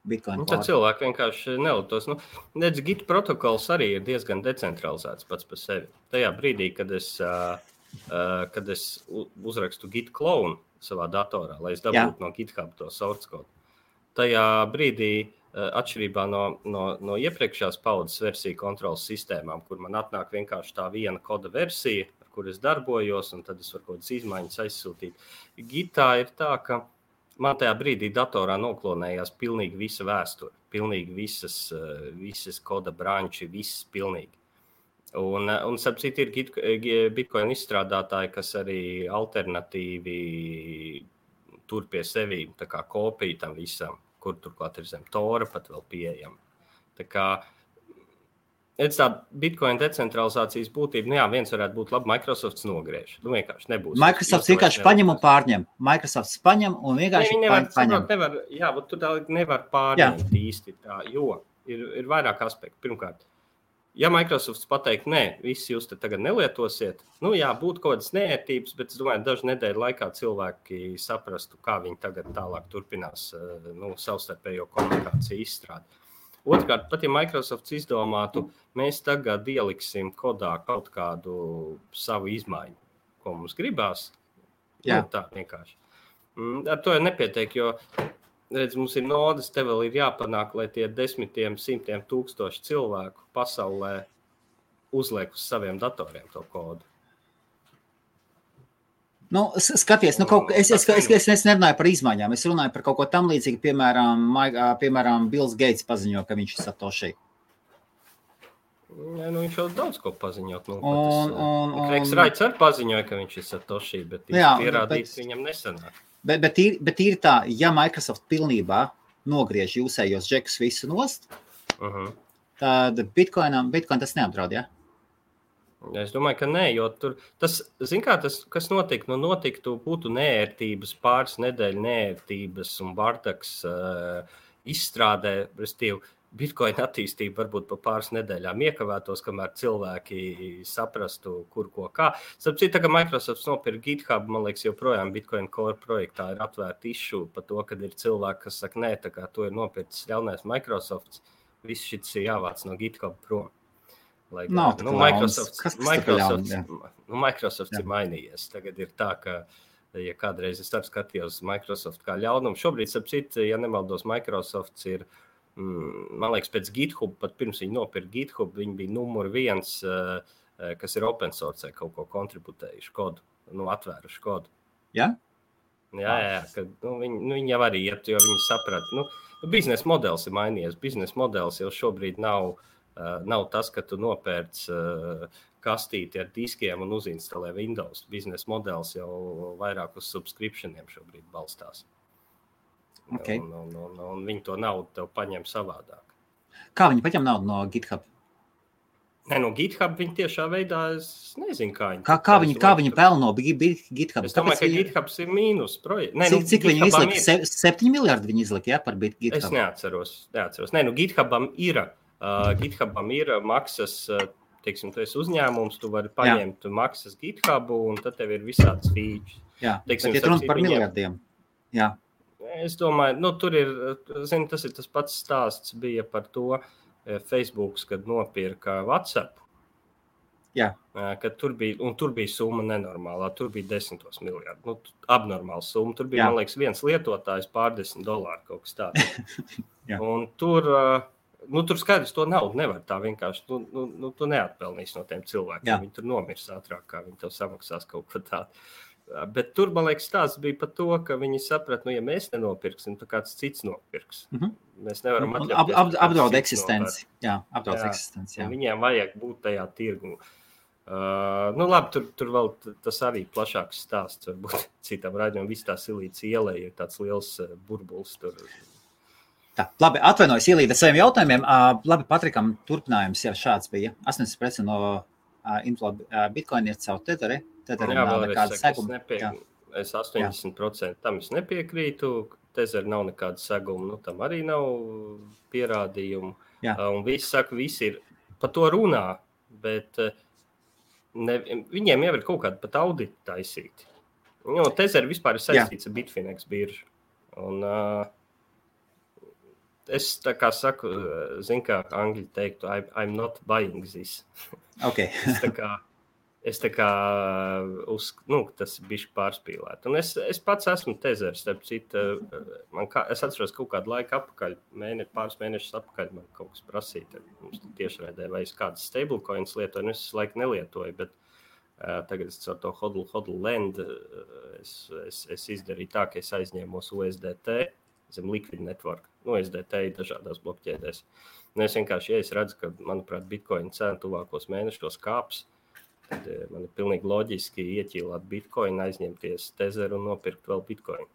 Bitcoin tad cilvēki vienkārši nelietos. Nedz Git protokols arī ir diezgan decentralizēts pats par sevi. Tajā brīdī, kad es uzrakstu Git clone savā datorā, lai es dabūtu no GitHub to source code. Tajā brīdī, atšķirībā no iepriekšējās paudzes versiju kontrolas sistēmām, kur man atnāk vienkārši tā viena koda versija, ar kur es darbojos, un tad es varu kaut kādas izmaiņas aizsūtīt. Gitā ir tā, ka man tajā brīdī datorā noklonējās pilnīgi visa vēsture, pilnīgi visas koda branči, viss pilnīgi. Un starp citu ir Bitcoin izstrādātāji, kas arī alternatīvi tur pie sevi, tā kā kopija tam visam, kur turklāt ir zem Tora pat vēl pieejama. Tā kā, tā Bitcoin decentralizācijas būtība, viens varētu būt labi, Microsofts nogriež. Vienkārši nebūs. Microsofts vienkārši paņem un pārņem. Microsofts paņem un vienkārši paņem. Tu nevar pārņemt īsti tā, jo ir vairāk aspekti. Pirmkārt, ja Microsofts pateikt, visi jūs te tagad nelietosiet, būtu kaut kādas neērtības, bet es domāju, dažu nedēļu laikā cilvēki saprastu, kā viņi tagad tālāk turpinās savstarpējo komunikāciju izstrādi. Otrkārt, pat ja Microsofts izdomātu, mēs tagad ieliksim kodā kaut kādu savu izmaiņu, ko mums gribās, tā vienkārši. Ar to jau nepietiek, jo redz, mums ir nodas, te vēl ir jāpanāk, lai tie 10, 100 tūkstoši cilvēku pasaulē uzliek uz saviem datoriem to kodu. Skaties, es nerunāju par izmaiņām, es runāju par kaut ko tam līdzīgi, piemēram, Bills Gates paziņo, ka viņš ir Satoshi. Viņš jau daudz ko paziņot. Reiks Raits arī paziņoja, ka viņš ir Satoshi, bet pierādīt viņam nesanāk. Bet ir tā, ja Microsoft pilnībā nogriež jūsējos džekus visu nost, tad Bitcoin tas neapdraud, ja? Es domāju, ka nē, jo tur, tas, kas notiktu, būtu neērtības, pāris nedēļu neērtības un bardaks izstrādē, restīvi, Bitcoin attīstība varbūt pa pāris nedēļām iekavētos, kamēr cilvēki saprastu, kur ko kā. Starp citu, ka Microsoft nopirka GitHub, man liekas, joprojām Bitcoin Core projektā ir atvērta issue par to, kad ir cilvēki, kas saka, nē, tā kā to ir nopircis ļaunais Microsofts, viss šis ir jāvāc no GitHub prom. Microsofts ir mainījies. Tagad ir tā, ka, ja kādreiz es skatījos Microsoft kā ļaunumu, šobrīd, starp citu, ja nemaldos, Microsofts ir man liekas, pēc GitHub, pat pirms viņi nopirka GitHub, viņi bija numur 1, kas ir open source, kaut ko kontributējuši kodu, atvēruši kodu. Ja? Jā, ka viņi jau arī iet, jo viņi saprat, biznesa modelis ir mainījies. Biznesa modelis jau šobrīd nav Nav tas, ka tu nopērc kastīti ar diskiem un uzinstalē Windows. Biznesa modelis jau vairāk uz subscriptioniem šobrīd balstās. Okay. Un viņi to naudu tev paņem savādāk. Kā viņi paņem naudu no GitHub? Ne, no GitHub viņi tiešā veidā, es nezinu, kā viņi. Kā viņi pelno no GitHub? Es domāju, ka GitHubs ir mīnus projekts. Cik viņi izlika? 7 miljardi viņi izlika, ja, par GitHub? Es neatceros. Ne, GitHubam ir maksas, teiksim, tu esi uzņēmums, tu vari paņemt maksas GitHubu, un tad tev ir visāds features. Jā, teiksim, bet ir runa par miljardiem. Jā. Es domāju, tur ir, tas ir tas pats stāsts bija par to, Facebook, kad nopirka WhatsApp, kad tur bija summa nenormālā, tur bija 10 miljardi, abnormāla summa, tur bija, man liekas, viens lietotājs $10 kaut kas tāds. Un tur skaidrs, to naudu nevar tā vienkārši, tu neatpelnīs no tiem cilvēkiem, viņi tur nomirs ātrāk, kā viņi tev samaksās kaut ko tādu. Bet tur, man liekas, stāsts bija par to, ka viņi saprat, ja mēs nenopirksim, tad kāds cits nopirks. Mēs nevaram atļauties. Apdraud eksistenci. Jā, apdraud eksistenci. Jā. Viņiem vajag būt tajā tirgu. Labi, tur vēl tas arī plašāks stāsts. Varbūt citam raidījumam viss tā Silīts ielē ir tāds liels burbulis tur. Tā, labi, atvainojos Ilīda saviem jautājumiem. Labi, Patrikam turpinājums jau šāds bija. 80% no inflow Bitcoin ir caur Tetheri. Jā, es 80% tam es nepiekrītu. Tether nav nekāda seguma, tam arī nav pierādījumu. Un visi saka, visi ir par to runā, bet viņiem jau ir kaut kāda pat auditi taisīti. Tether vispār ir saistīts ar Bitfinex biržu. Un es tā kā saku, zinu, kā angļi teiktu, I'm not buying this. Okay. Es tā kā tas ir bišķi pārspīlēt. Un es pats esmu Tether, starp citu, es atceros kaut kādu laiku apakaļ, pāris mēnešus apakaļ man kaut kas prasīja. Mums tiešraidē vai es kādas stablecoins lietoju, es laiku nelietoju, bet tagad es ar to hodl lend, es izdarīju tā, ka es aizņēmos USDT zem Liquid Network. USDT ir dažādās blokķēdēs. Un es vienkārši, ja es redzu, ka, manuprāt, Bitcoin cena tuvākos mēnešos kāps, tad man ir pilnīgi loģiski ieķīlāt Bitcoin, aizņemties Tether un nopirkt vēl Bitcoin.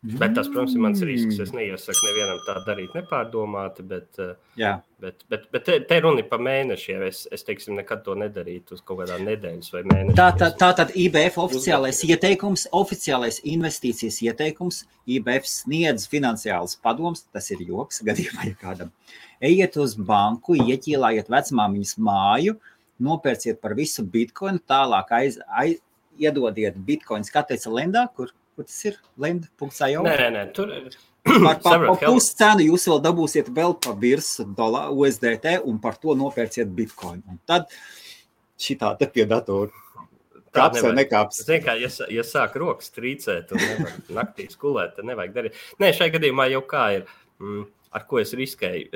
Bet tas, protams, ir mans risks. Es neiesaku nevienam tā darīt nepārdomāti, bet te runa ir pa mēnešiem. Es teiksim, nekad to nedarītu uz kaut kādā nedēļas vai mēnešiem. Tātad IBF oficiālais ieteikums, oficiālais investīcijas ieteikums, IBF sniedz finansiāls padoms, tas ir joks gadījumā, ja kādam. Ejiet uz banku, ieķīlājiet vecmāmiņas māju, nopērciet par visu Bitcoinu, tālāk iedodiet Bitcoins, kā teica Lendā, kur tas ir? Lend.io? Nē, tur ir. Par puscenu jūs vēl dabūsiet vēl pa virsu USDT un par to nopērciet Bitcoin. Un tad šitā te pie datoru. Kāps vai nekāps? Zin kā, ja sāk rokas trīcēt un nevar naktī skulēt, tad nevajag darīt. Nē, šai gadījumā jau kā ir, ar ko es riskēju?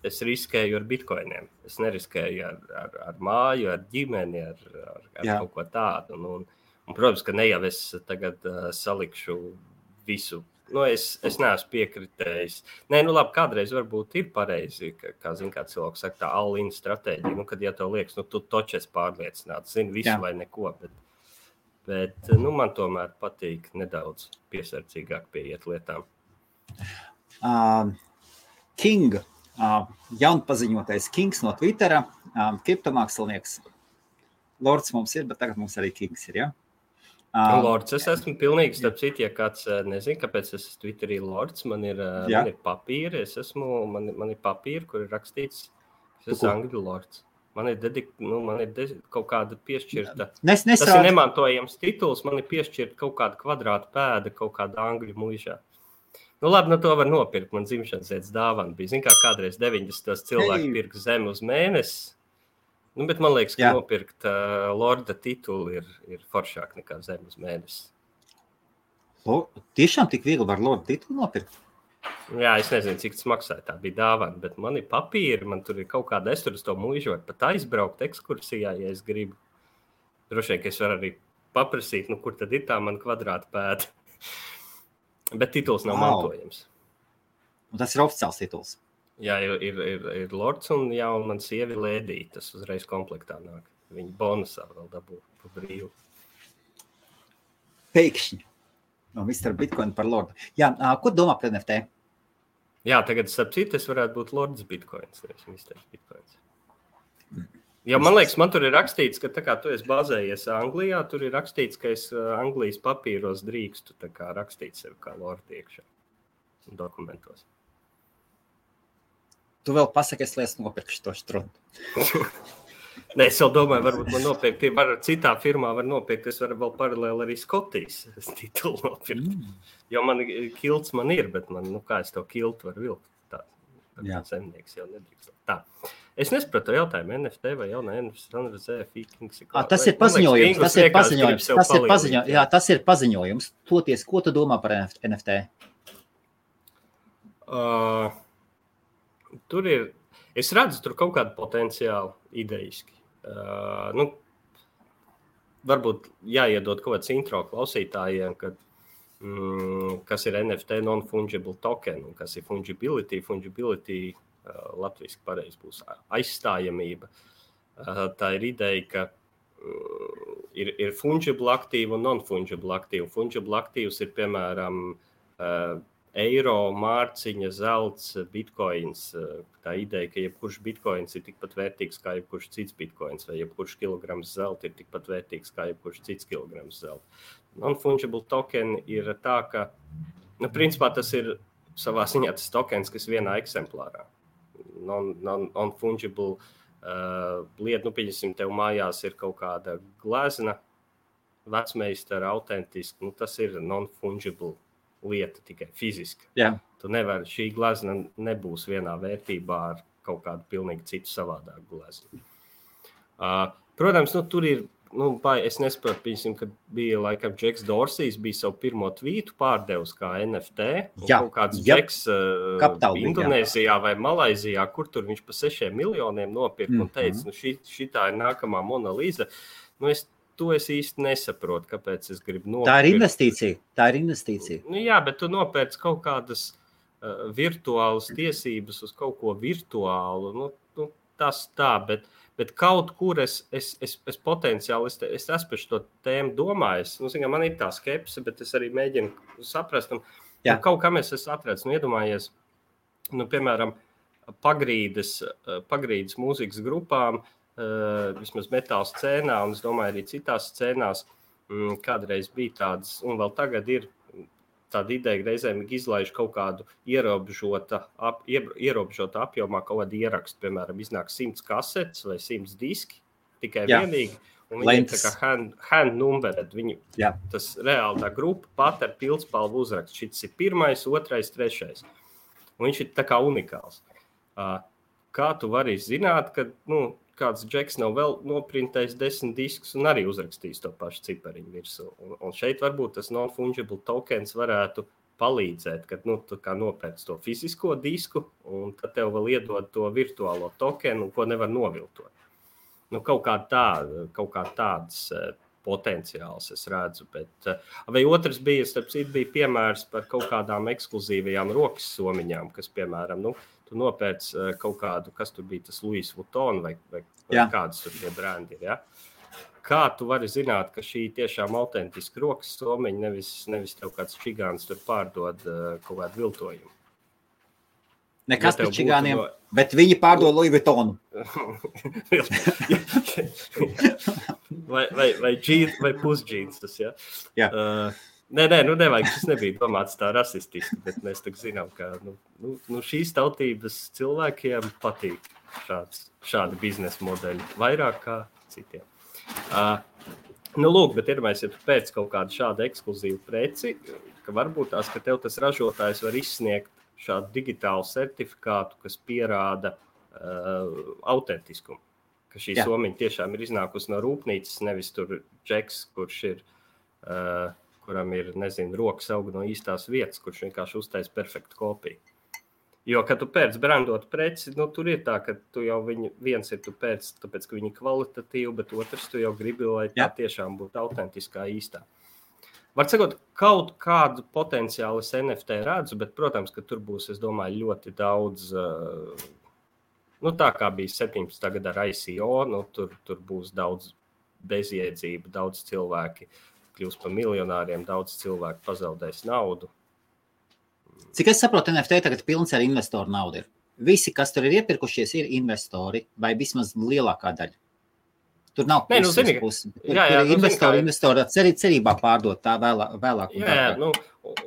Es riskēju ar Bitcoiniem. Es neriskēju ar māju, ar ģimeni, ar kaut ko tādu. Un, protams, ka ne jau es tagad salikšu visu. Es neesmu piekritējis. Nē, labi, kādreiz varbūt ir pareizi, kā cilvēks saka, tā all-in stratēģija. Kad ja tev liekas, tu toči esi pārliecināts, zini visu vai neko. Bet man tomēr patīk nedaudz piesardzīgāk pieiet lietām. King, jaunpaziņotais Kings no Twittera, kriptomākslinieks. Lords mums ir, bet tagad mums arī Kings ir, ja? Lords, es esmu pilnīgi, starp citu, ja kāds nezinu, kāpēc es Twitterī Lords, man ir papīri, man ir papīri, kur ir rakstīts, es esmu Angļu Lords. Man ir kaut kāda piešķirta, tas ir nemantojams tituls, man ir piešķirta kaut kāda kvadrāta pēda, kaut kāda Angļu muižā. Labi, to var nopirkt, man dzimšanas dienas dāvana bija. Zin kā kādreiz 90. cilvēki pirka zemi uz mēnesi. Bet man liekas, ka nopirkt Lorda titulu ir foršāk nekā zem uz mēnesi. Tiešām tik viegli var Lorda titulu nopirkt? Jā, es nezinu, cik tas maksāja, tā bija dāvana, bet man ir papīri, man tur ir kaut kāda, es tur uz to muižu var pat aizbraukt ekskursijā, ja es gribu. Droši vien, ka es varu arī paprasīt, kur tad ir tā man kvadrāta pēda. Bet tituls nav mantojams. Un tas ir oficiāls tituls? Jā, ir Lords un jauna sievi Lēdī. Tas uzreiz komplektā nāk. Viņa bonusā vēl dabū pa brīvu. Pēkšņi. No Mr. Bitcoin par Lordu. Jā, ko domā par NFT? Jā, tagad starp citu es varētu būt Lords Bitcoins, nevis Mr. Bitcoins. Jo man liekas, man tur ir rakstīts, ka tā kā tu esi bazējies Anglijā, tur ir rakstīts, ka es Anglijas papīros drīkstu tā kā rakstīt sevi kā Lordi iekšā dokumentos. Tu vēl pasakies, lai es nopirkšu to štrundu. Nē, es vēl domāju, varbūt man nopirkt, citā firmā var nopirkt, es varu vēl paralēli arī Skotijas titulu nopirkt. Jo man kilts man ir, bet man, kā es to kiltu varu vilkt? Tā zemnieks jau nedrīkst. Tā. Es nesapratu jautājumu, NFT vai jaunā NFT. Tas ir paziņojums. Tas ir paziņojums. Toties, ko tu domā par NFT? Tur ir, es redzu tur kaut kādu potenciālu idejiski. Varbūt jāiedod kaut kāds intro klausītājiem, kas ir NFT non-fungible token un kas ir fungibility. Fungibility latviski pareizi būs aizstājamība. Tā ir ideja, ka ir fungible aktīvi un non-fungible aktīvi. Fungible aktīvs ir, piemēram, eiro, mārciņa, zelts, bitcoins. Tā ideja, ka jebkurš bitcoins ir tikpat vērtīgs kā jebkurš cits bitcoins, vai jebkurš kilograms zelta ir tikpat vērtīgs kā jebkurš cits kilograms zelta. Non-fungible token ir tā, ka, principā tas ir savā ziņā tas tokens, kas vienā eksemplārā. Non-fungible lieta, pieņemsim, tev mājās ir kaut kāda glezna, vecmeistara, autentiska, tas ir non-fungible lieta, tikai fiziska. Jā. Tu nevari, šī glezna nebūs vienā vērtībā ar kaut kādu pilnīgi citu savādāku gleznu. Protams, tur ir, es nesaprotu, pieņemsim, kad bija laikam Džeks Dorsijs, bija savu pirmo tvītu pārdevis kā NFT. Jā, kaut kāds Džeks Indonēzijā vai Malaizijā, kur tur viņš pa 6 miljoniem nopirka un teica, šitā ir nākamā Mona Lisa. Es īsti nesaprotu, kāpēc es gribu nopirkt. Tā ir investīcija. Jā, bet tu nopērci kaut kādas virtuālas tiesības uz kaut ko virtuālu. Tas tā, bet kaut kur es potenciāli, es esmu par šo tēmu domājis. Man ir tā skepse, bet es arī mēģinu saprast. Kaut kam es esmu atradzis, iedomājies, piemēram, pagrīdes mūzikas grupām, vismaz metāla scēnā, un es domāju, arī citās scēnās kādreiz bija tādas, un vēl tagad ir tāda ideja, reizēm izlaiž kaut kādu ierobežota apjomā kaut kādu ierakstu, piemēram, iznāk 100 kasetes vai 100 diski, tikai vienīgi, un viņi ir tā kā hand numbered, tas reāli tā grupa pat ar pildspalvu uzrakstu, šis ir 1., 2., 3. Un viņš ir tā kā unikāls. Kā tu vari zināt, ka, kāds Džeks nav vēl noprintējis 10 diskus un arī uzrakstījis to pašu cipariņu virsū. Un šeit varbūt tas non-fungible tokens varētu palīdzēt, kad tu kā nopērc to fizisko disku un tad tev vēl iedod to virtuālo tokenu, ko nevar noviltot. Kaut kā tādas potenciāls es redzu. Vai otrs bija, starp citu, bija piemērs par kaut kādām ekskluzīvajām rokas somiņām, kas, piemēram, tu nopērc kaut kādu, kas tur bija tas Louis Vuitton vai kādas tur tie brendi ir, ja? Kā tu vari zināt, ka šī tiešām autentiska rokas somiņa, nevis tev kāds čigāns tur pārdod kaut kādu viltojumu? Nekas par čigāniem, bet viņi pārdod Louis Vuittonu. vai pusdžīns tas, ja? Jā. Nevajag, šis nebija domāts tā rasistiski, bet mēs tak zinām, ka šīs tautības cilvēkiem patīk šādi biznesa modeļi, vairāk kā citiem. Lūk, bet iedomājies, ja tu pēc kaut kādu šādu ekskluzīvu preci, ka varbūt tās, ka tev tas ražotājs var izsniegt šādu digitālu certifikātu, kas pierāda autentiskumu, ka šī somiņa tiešām ir iznākusi no rūpnīcas, nevis tur Džeks, kurš ir... kuram ir, rokas aug no īstās vietas, kurš vienkārši uztais perfektu kopiju. Jo, kad tu pēc brandot preci, tur ir tā, ka tu jau viens ir tu pēc, tāpēc, ka viņi kvalitatīvi, bet otrs tu jau gribi, lai tā tiešām būtu autentiskā īstā. Var sakot, kaut kādu potenciālu es NFT redzu, bet, protams, ka tur būs, es domāju, ļoti daudz, tā kā bija 17. gadā ar ICO, tur būs daudz bezjēdzība, daudz cilvēki kļūs par miljonāriem, daudz cilvēku pazaudēs naudu. Cik es saprotu, NFT tagad pilns ar investoru naudu ir. Visi, kas tur ir iepirkušies, ir investori vai vismaz lielākā daļa. Tur nav puses. Tur ir investori cerībā pārdot tā vēlāk. Jā,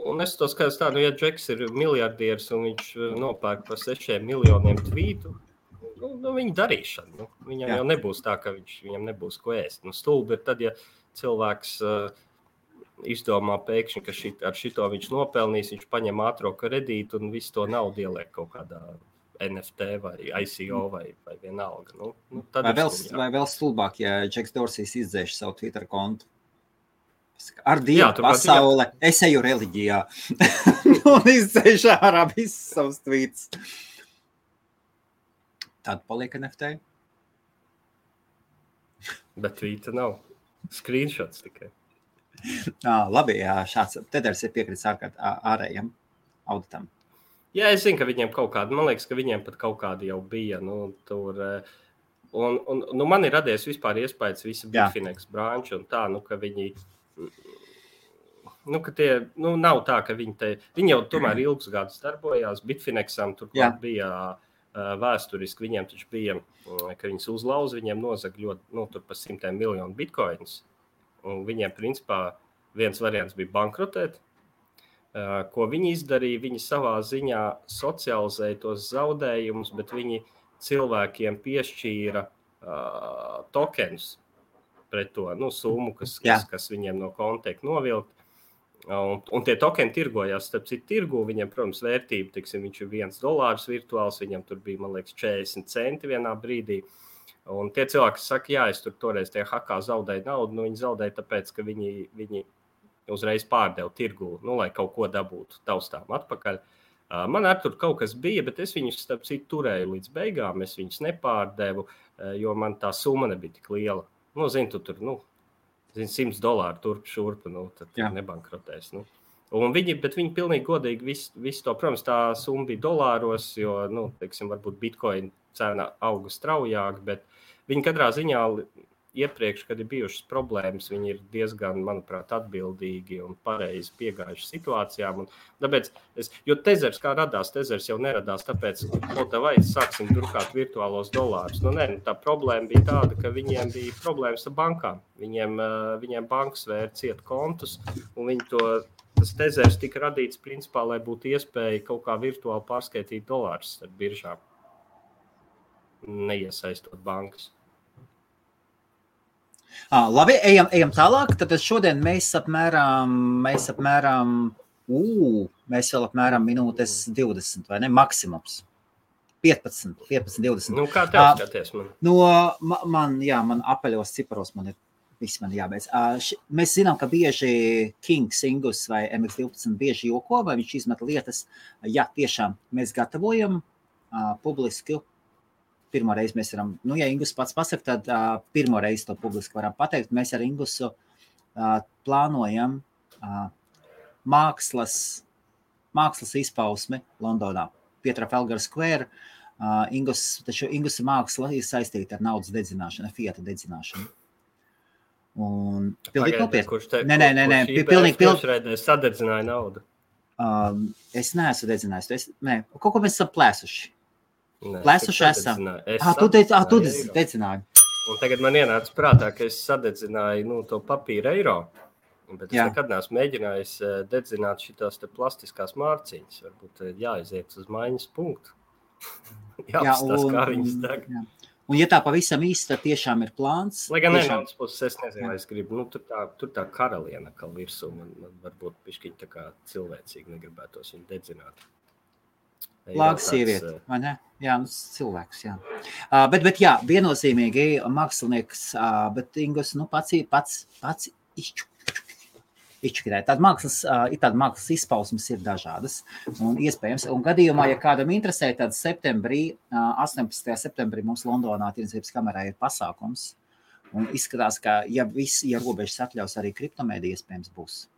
un es to skatos tā, ja Džeks ir miljardieris un viņš nopērk par 6 miljoniem tvītu, viņa darīšana. Viņam jau nebūs tā, ka viņam nebūs ko ēst. Stulbi ir tad, ja cilvēks izdomā pēkšņi, ka ar šito viņš nopelnīs, viņš paņem ātro kredītu un visu to naudu ieliek kaut kādā NFT vai ICO vai vienalga. Vai vēl stulbāk, ja Džeks Dorsijs izdzēš savu Twitter kontu. Ar Dievu pasaule, es eju reliģijā. Un izdzēš ārā visus savus tweets. Tad paliek NFT. Bet tweeta nav. Screenshots tikai. Labi, šāds Teders ir piekritis ārējiem auditam. Jā, es zinu, ka viņiem kaut kādi, man liekas, ka viņiem pat kaut kādi jau bija, tur, un man ir radies vispār iespējas visa Bitfinex branča un tā, ka viņi, ka tie, nav tā, ka viņi jau tomēr ilgus gadus darbojās, Bitfinexam turklāt bija vēsturiski, viņiem taču bija, ka viņas uzlauz, viņiem nozag ļoti, tur pa 100 miljonu bitcoins, un viņiem principā viens variants bija bankrotēt. Ko viņi izdarīja, viņi savā ziņā socializēja tos zaudējumus, bet viņi cilvēkiem piešķīra tokenus pret to summu, kas viņiem no konta tiek novilkt. Un tie tokeni tirgojās, starp citu tirgu, viņiem, protams, vērtība, viņš ir $1 virtuāls, viņam tur bija, man liekas, 40 centi vienā brīdī. Un tie cilvēki saka, es tur toreiz tie hakā zaudēju naudu, viņi zaudēja tāpēc, ka viņi uzreiz pārdevu tirgu, lai kaut ko dabūtu taustām atpakaļ. Man ar tur kaut kas bija, bet es viņus, starp citu, turēju līdz beigām, es viņus nepārdevu, jo man tā summa nebija tik liela. Tu tur, $100 turp šurp, tad nebankrotēs. Bet viņi pilnīgi godīgi visu to, protams, tā summa bija dolāros, jo, varbūt Bitcoin cena auga straujāk, bet viņi katrā ziņā iepriekš, kad ir bijušas problēmas, viņi ir diezgan, manuprāt, atbildīgi un pareizi piegājuši situācijām. Tāpēc jo Tezers kā radās, Tezers jau neradās, tāpēc, vai sāksim drukāt virtuālos dolārus. Tā problēma bija tāda, ka viņiem bija problēmas ar bankām. Viņiem bankas vēra ciet kontus, un tas Tezers tika radīts principā, lai būtu iespēja kaut kā virtuāli pārskaitīt dolārus ar biržām, neiesaistot bankas. Labi, ejam tālāk. Tad šodien mēs vēl apmēram minūtes 20, vai ne? Maksimums. 15, 20. Kā tev skaties man? Man apaļos ciparos viss man jābeidz. Mēs zinām, ka bieži Kings, Ingus vai MX12 bieži joko, vai viņš izmet lietas. Jā, tiešām mēs gatavojam publiski. Pirmo reizi mēs varam, ja Ingus pats pasaka, tad pirmo reizi to publiski varam pateikt. Mēs ar Ingusu plānojam mākslas izpausmi Londonā, pie Trafalgar Square. Ingusa māksla ir saistīta ar naudas dedzināšanu, ar fiata dedzināšanu. Un pilnīgi nopietni. Kurš reizē sadedzināja naudu? Es neesmu dedzinājis. Kaut ko mēs esam plēsuši. Plēsuši esam. Tu dedzināji. Un tagad man ienāca prātā, ka es sadedzināju to papīra eiro, bet es nekad neesmu mēģinājis dedzināt šitās te plastiskās mārciņas. Varbūt jāaiziet uz maiņas punktu. Jāapstās, kā viņas deg. Un ja tā pavisam īsti, tad tiešām ir plāns. Lai gan vienāds puses, es nezinu, vai es gribu, tur tā karaliena kal virsū, man varbūt pišķiņ tā kā cilvēcīgi negribētos viņu dedzināt. Lāga sieviete, vai ne? Jā, cilvēks, jā. Bet jā, viennozīmīgi mākslinieks, bet Ingus, pats izčukirē. Tāda mākslas izpausmes ir dažādas un iespējams. Un gadījumā, ja kādam interesē, tad 18. septembrī mums Londonā Tirdzniecības kamerā ir pasākums. Un izskatās, ka ja robežas atļaus, arī kriptomēdija iespējams būs.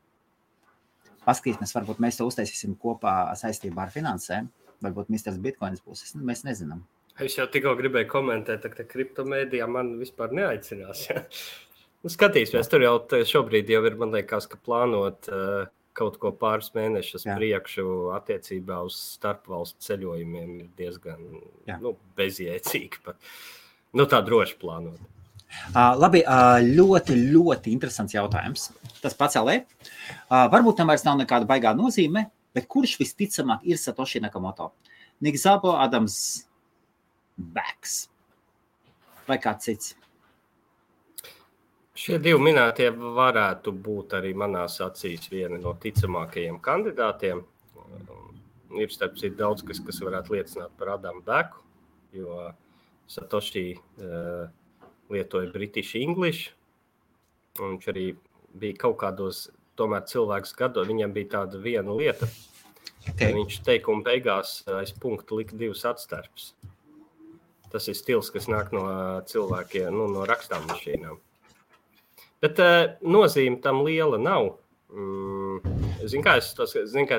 paskatīsimies, varbūt mēs to uztaisīsim kopā saistībā ar finansēm. Varbūt Mr. Bitcoins būs, mēs nezinām. Es jau tikko gribēju komentēt, ka kriptomēdijā man vispār neaicinās. Ja? Nu, skatīsimies, tur jau šobrīd jau ir, man liekas, ka plānot kaut ko pāris mēnešus priekšu attiecībā uz starpvalstu ceļojumiem ir diezgan bezjēcīgi. Tā droši plānot. Labi, ļoti, ļoti interesants jautājums. Tas pacēlē. Varbūt tam vairs nav nekāda baigā nozīme, bet kurš visticamāk ir Satoshi Nakamoto? Nick Szabo, Adams Bax vai kāds cits? Šie divi minētie varētu būt arī manās acīs vieni no ticamākajiem kandidātiem. Ir starp citu daudz, kas varētu liecināt par Adamu Beku, jo Satoshi lietoja British English, un viņš arī bija kaut kādos tomēr cilvēks gados, viņam bija tāda viena lieta, viņš teikuma beigās aiz punktu lika divas atstarpes. Tas ir stils, kas nāk no cilvēkiem, no rakstām mašīnām. Bet nozīme tam liela nav. Zinu, ka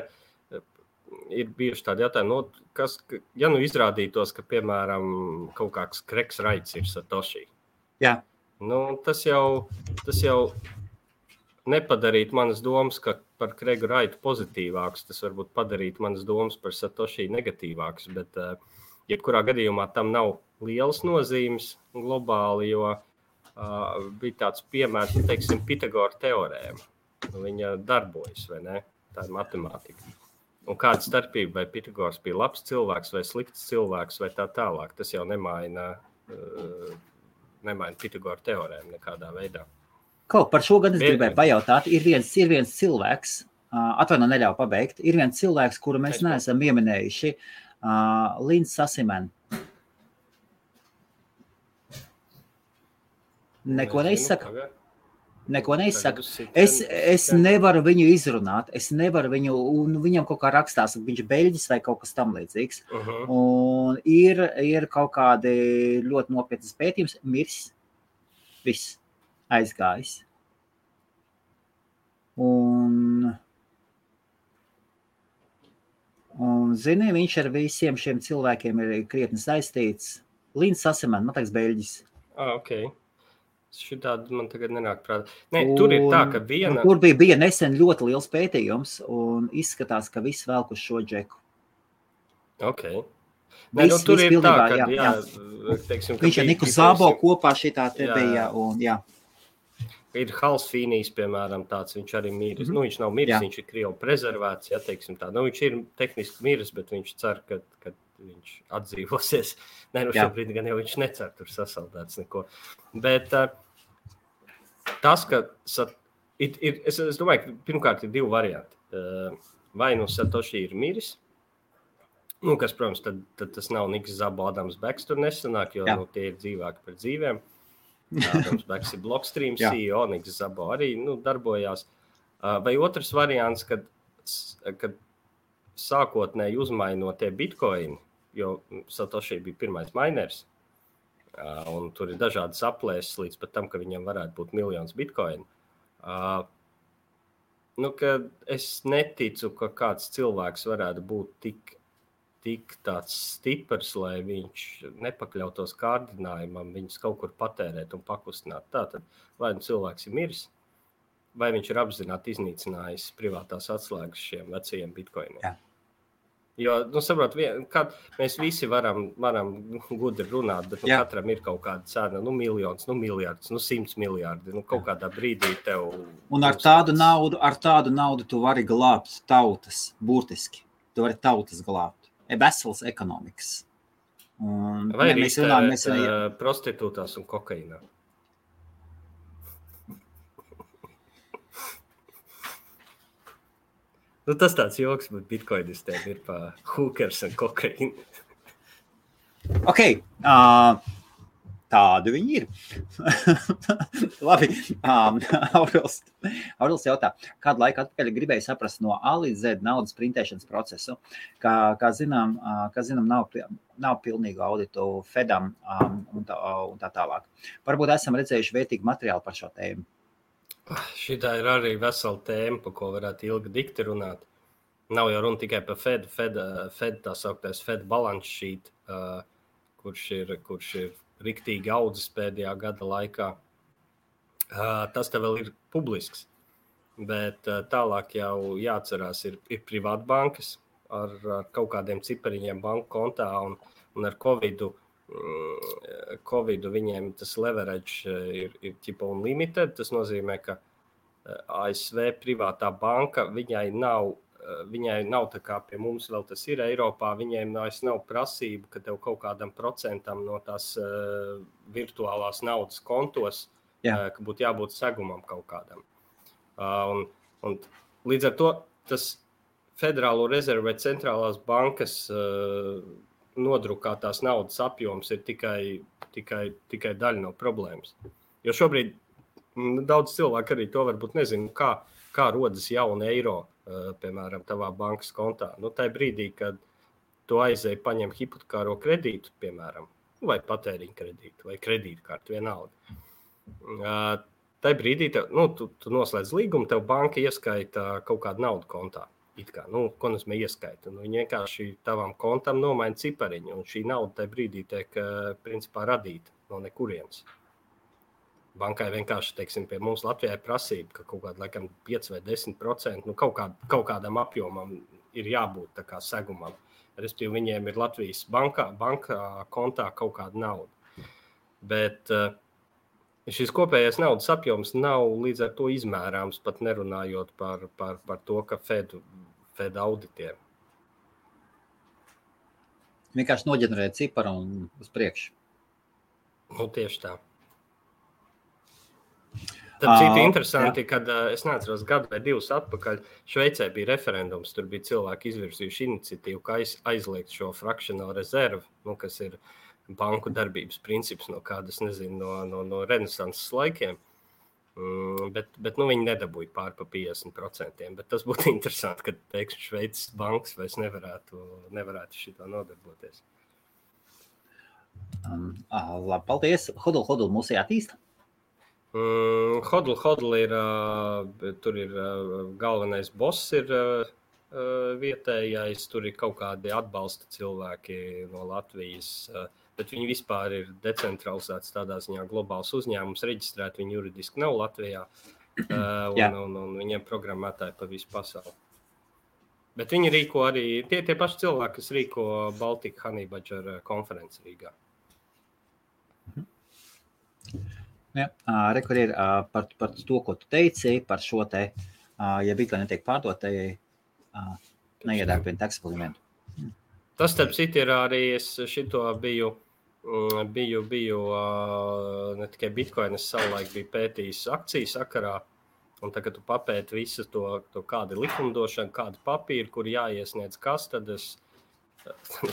ir bijuši tādi jautājumi, ja izrādītos, ka, piemēram, kaut kāds Craigs Wrights ir Satoshi. Jā. Tas jau nepadarītu manas domas, ka par Craigu Wrightu pozitīvāks, tas varbūt padarītu manas domas par Satoshi negatīvāks, bet jebkurā gadījumā tam nav lielas nozīmes globāli, jo bija tāds piemērs, teiksim, Pitagora teorēma. Viņa darbojas, vai ne? Tā ir matemātika. Un kāda starpība, vai Pitagors bija labs cilvēks vai slikts cilvēks vai tā tālāk, tas jau nemaina Pitagora teorēmu nekādā veidā. Par šo gan es gribēju pajautāt. Ir viens cilvēks, neļauj pabeigt, ir viens cilvēks, kuru mēs neesam pieminējuši, Linds Sasimen. Neko neizsaka. Es nevaru viņu izrunāt, un viņam kaut kā rakstās, viņš beļģis vai kaut kas tam līdzīgs. Un ir kaut kādi ļoti nopietnas pētījums, mirs, viss aizgājis. Un zini, viņš ar visiem šiem cilvēkiem ir krietni saistīts. Linds Sasimen, man liekas, beļģis. Okay. Šitādi man tagad nenāk prātā. Tur ir tā, ka viena... Tur bija nesen ļoti liels pētījums, un izskatās, ka viss velk uz šo džeku. Okay. Tur ir tā, ka teiksim, viņš ar Niku Szabo kopā šitā te bija, un jā. Ir Hals Fīnijs, piemēram, tāds, viņš arī miris. Viņš nav miris, viņš ir Krievu prezervēts, teiksim tā. Viņš ir tehniski miris, bet viņš cer, ka viņš atdzīvosies. Šobrīd gan jau viņš necer tur sasaldēts neko. Bet tas, ka es domāju, ka pirmkārt ir divi varianti. Vai Satoshi ir miris, kas, protams, tad tas nav Niks Szabo, Adams Beks tur nesanāk, jo tie ir dzīvāki par dzīvēm. Adams Beks ir Blockstream CEO, Niks Szabo arī darbojās. Vai otrs variants, kad sākotnēji uzmainot tie bitcoini, jo Satoshi bija pirmais miners, un tur ir dažādas aplēses līdz pat tam, ka viņam varētu būt miljons bitcoinu. Ka es neticu, ka kāds cilvēks varētu būt tik tāds stiprs, lai viņš nepakļautos kārdinājumam, viņus kaut kur patērēt un pakustināt. Tātad, vai cilvēks ir miris, vai viņš ir apzināti iznīcinājis privātās atslēgas šiem vecajiem bitcoiniem. Jā. Jo, saprot, mēs visi varam gudri runāt, bet katram ir kaut kāda cena, miljons, miljards, 100 miljardi, kaut kādā brīdī tev... Un ar tādu naudu tu vari glābt tautas, burtiski. Tu vari tautas glābt. Veselas ekonomikas. Vai arī iztērēt prostitūtās un kokainā? Tas tāds joks, bet bitcoinistēm ir pa hookers un kokaini. Ok, tādu viņi ir. Labi, Aurils jautā, kādu laiku atpakaļ gribēju saprast no A līdz Z naudas printēšanas procesu, kā zinām, nav pilnīgu auditu Fedam un tā tālāk. Varbūt esam redzējuši vērtīgu materiālu par šo tēmu. Šitā ir arī vesela tēma, par ko varētu ilgi dikti runāt. Nav jau runa tikai par Fed tā sauktais Fed balance sheet, kurš ir riktīgi audzis pēdējā gada laikā. Tas te vēl ir publisks, bet tālāk jau jāatcerās ir privātbankas ar kaut kādiem cipariņiem banku kontā un ar Covidu viņiem tas leverage ir ķipa unlimited. Tas nozīmē, ka ASV privātā banka, viņai nav tā kā pie mums vēl tas ir Eiropā, viņiem nav prasība, ka tev kaut kādam procentam no tās virtuālās naudas kontos, ka būtu jābūt segumam kaut kādam. Un līdz ar to tas Federālo rezervu vai centrālās bankas nodrukātās naudas apjoms ir tikai daļa no problēmas. Jo šobrīd daudz cilvēku arī to varbūt nezinu, kā rodas jauna eiro, piemēram, tavā bankas kontā. Tajā brīdī, kad tu aizēji paņem hipotekāro kredītu, piemēram, vai patēriņa kredītu, vai kredītkarti, vienalga. Tajā brīdī tu noslēdz līgumu, tev banka ieskaita kaut kādu naudu kontā. Ko nozīmē ieskaita? Viņi vienkārši tavam kontam nomaina cipariņu, un šī nauda tajā brīdī tiek principā radīta no nekurienes. Bankai vienkārši, teiksim, pie mums Latvijā ir prasība, ka kaut kāda, laikam, 5 vai 10%, kaut kādam apjomam ir jābūt tā kā segumam. Respektīvi, viņiem ir Latvijas bankā kontā kaut kāda nauda. Bet šis kopējais naudas apjoms nav līdz ar to izmērāms, pat nerunājot par to, ka Fed auditiem. Vienkārši noģenerēt ciparu un uz priekšu. Tieši tā. Tad citi interesanti, kad es neatceros gadu vai 2 atpakaļ, Šveicē bija referendums, tur bija cilvēki izvirzījuši iniciatīvu, ka aizliegt šo fractional reserve, kas ir banku darbības princips no kādas, nezinu, no renesanses laikiem. Bet viņi nedabūja pār pa 50%. Bet tas būtu interesanti, kad, teiksim, Šveices bankas vairs nevarētu šito nodarboties. Labi, paldies. Hodl mūs jātīsta? Hodl ir, tur ir galvenais boss ir vietējais, tur ir kaut kādi atbalsta cilvēki no Latvijas, bet viņi vispār ir decentralizēts tādā ziņā globāls uzņēmums, reģistrēti viņi juridiski nav Latvijā, un viņiem programmētāji pa visu pasauli. Bet viņi rīko arī, tie paši cilvēki, kas rīko Baltic Honey Badger konferenci Rīgā. Kur ir par to, ko tu teici, par šo te, ja Bitcoin netiek pārdot, neiedēk vien tax eksperimentu. Tas, starp citu, ir arī, es šito biju ne tikai Bitcoin, es savulaik biju pētījis akciju sakarā, un tagad tu papēti visu to kāda likumdošana, kāda papīra, kur jāiesniedz kas, tad es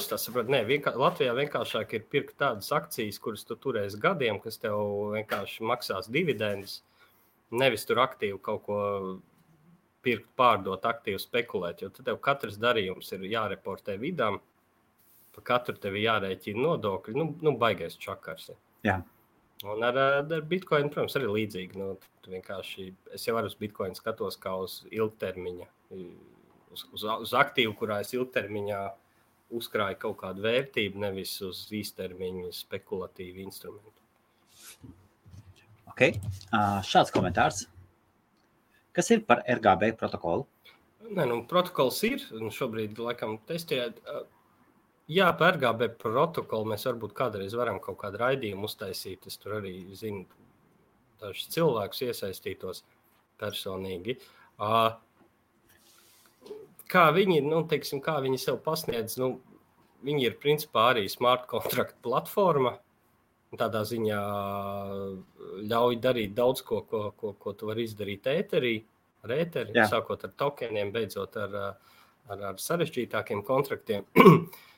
tā saprotu, Latvijā vienkāršāk ir pirkt tādas akcijas, kuras tu turēsi gadiem, kas tev vienkārši maksās dividendus, nevis tur aktīvi kaut ko pirkt, pārdot, aktīvi spekulēt, jo tad tev katrs darījums ir jāreportē vidām, pa katru tevi jārēķina nodokļi, baigais čakars. Jā. Un ar Bitcoin, protams, arī līdzīgi. Tu vienkārši, es jau uz Bitcoin skatos kā uz ilgtermiņa, uz aktīvu, kurā es ilgtermiņā uzkrāju kaut kādu vērtību, nevis uz īstermiņa spekulatīvu instrumentu. Ok, šāds komentārs. Kas ir par RGB protokolu? Protokols ir, un šobrīd, laikam, testējot. Jā, par RGB protokolu mēs varbūt kādreiz varam kaut kādu raidījumu uztaisīt. Es tur arī zinu dažus cilvēkus iesaistītos personīgi. Kā viņi, kā viņi sev pasniedz, viņi ir principā arī smart contract platforma. Tādā ziņā ļauj darīt daudz ko tu vari izdarīt ēterī, sākot ar tokeniem, beidzot ar sarežģītākiem kontraktiem.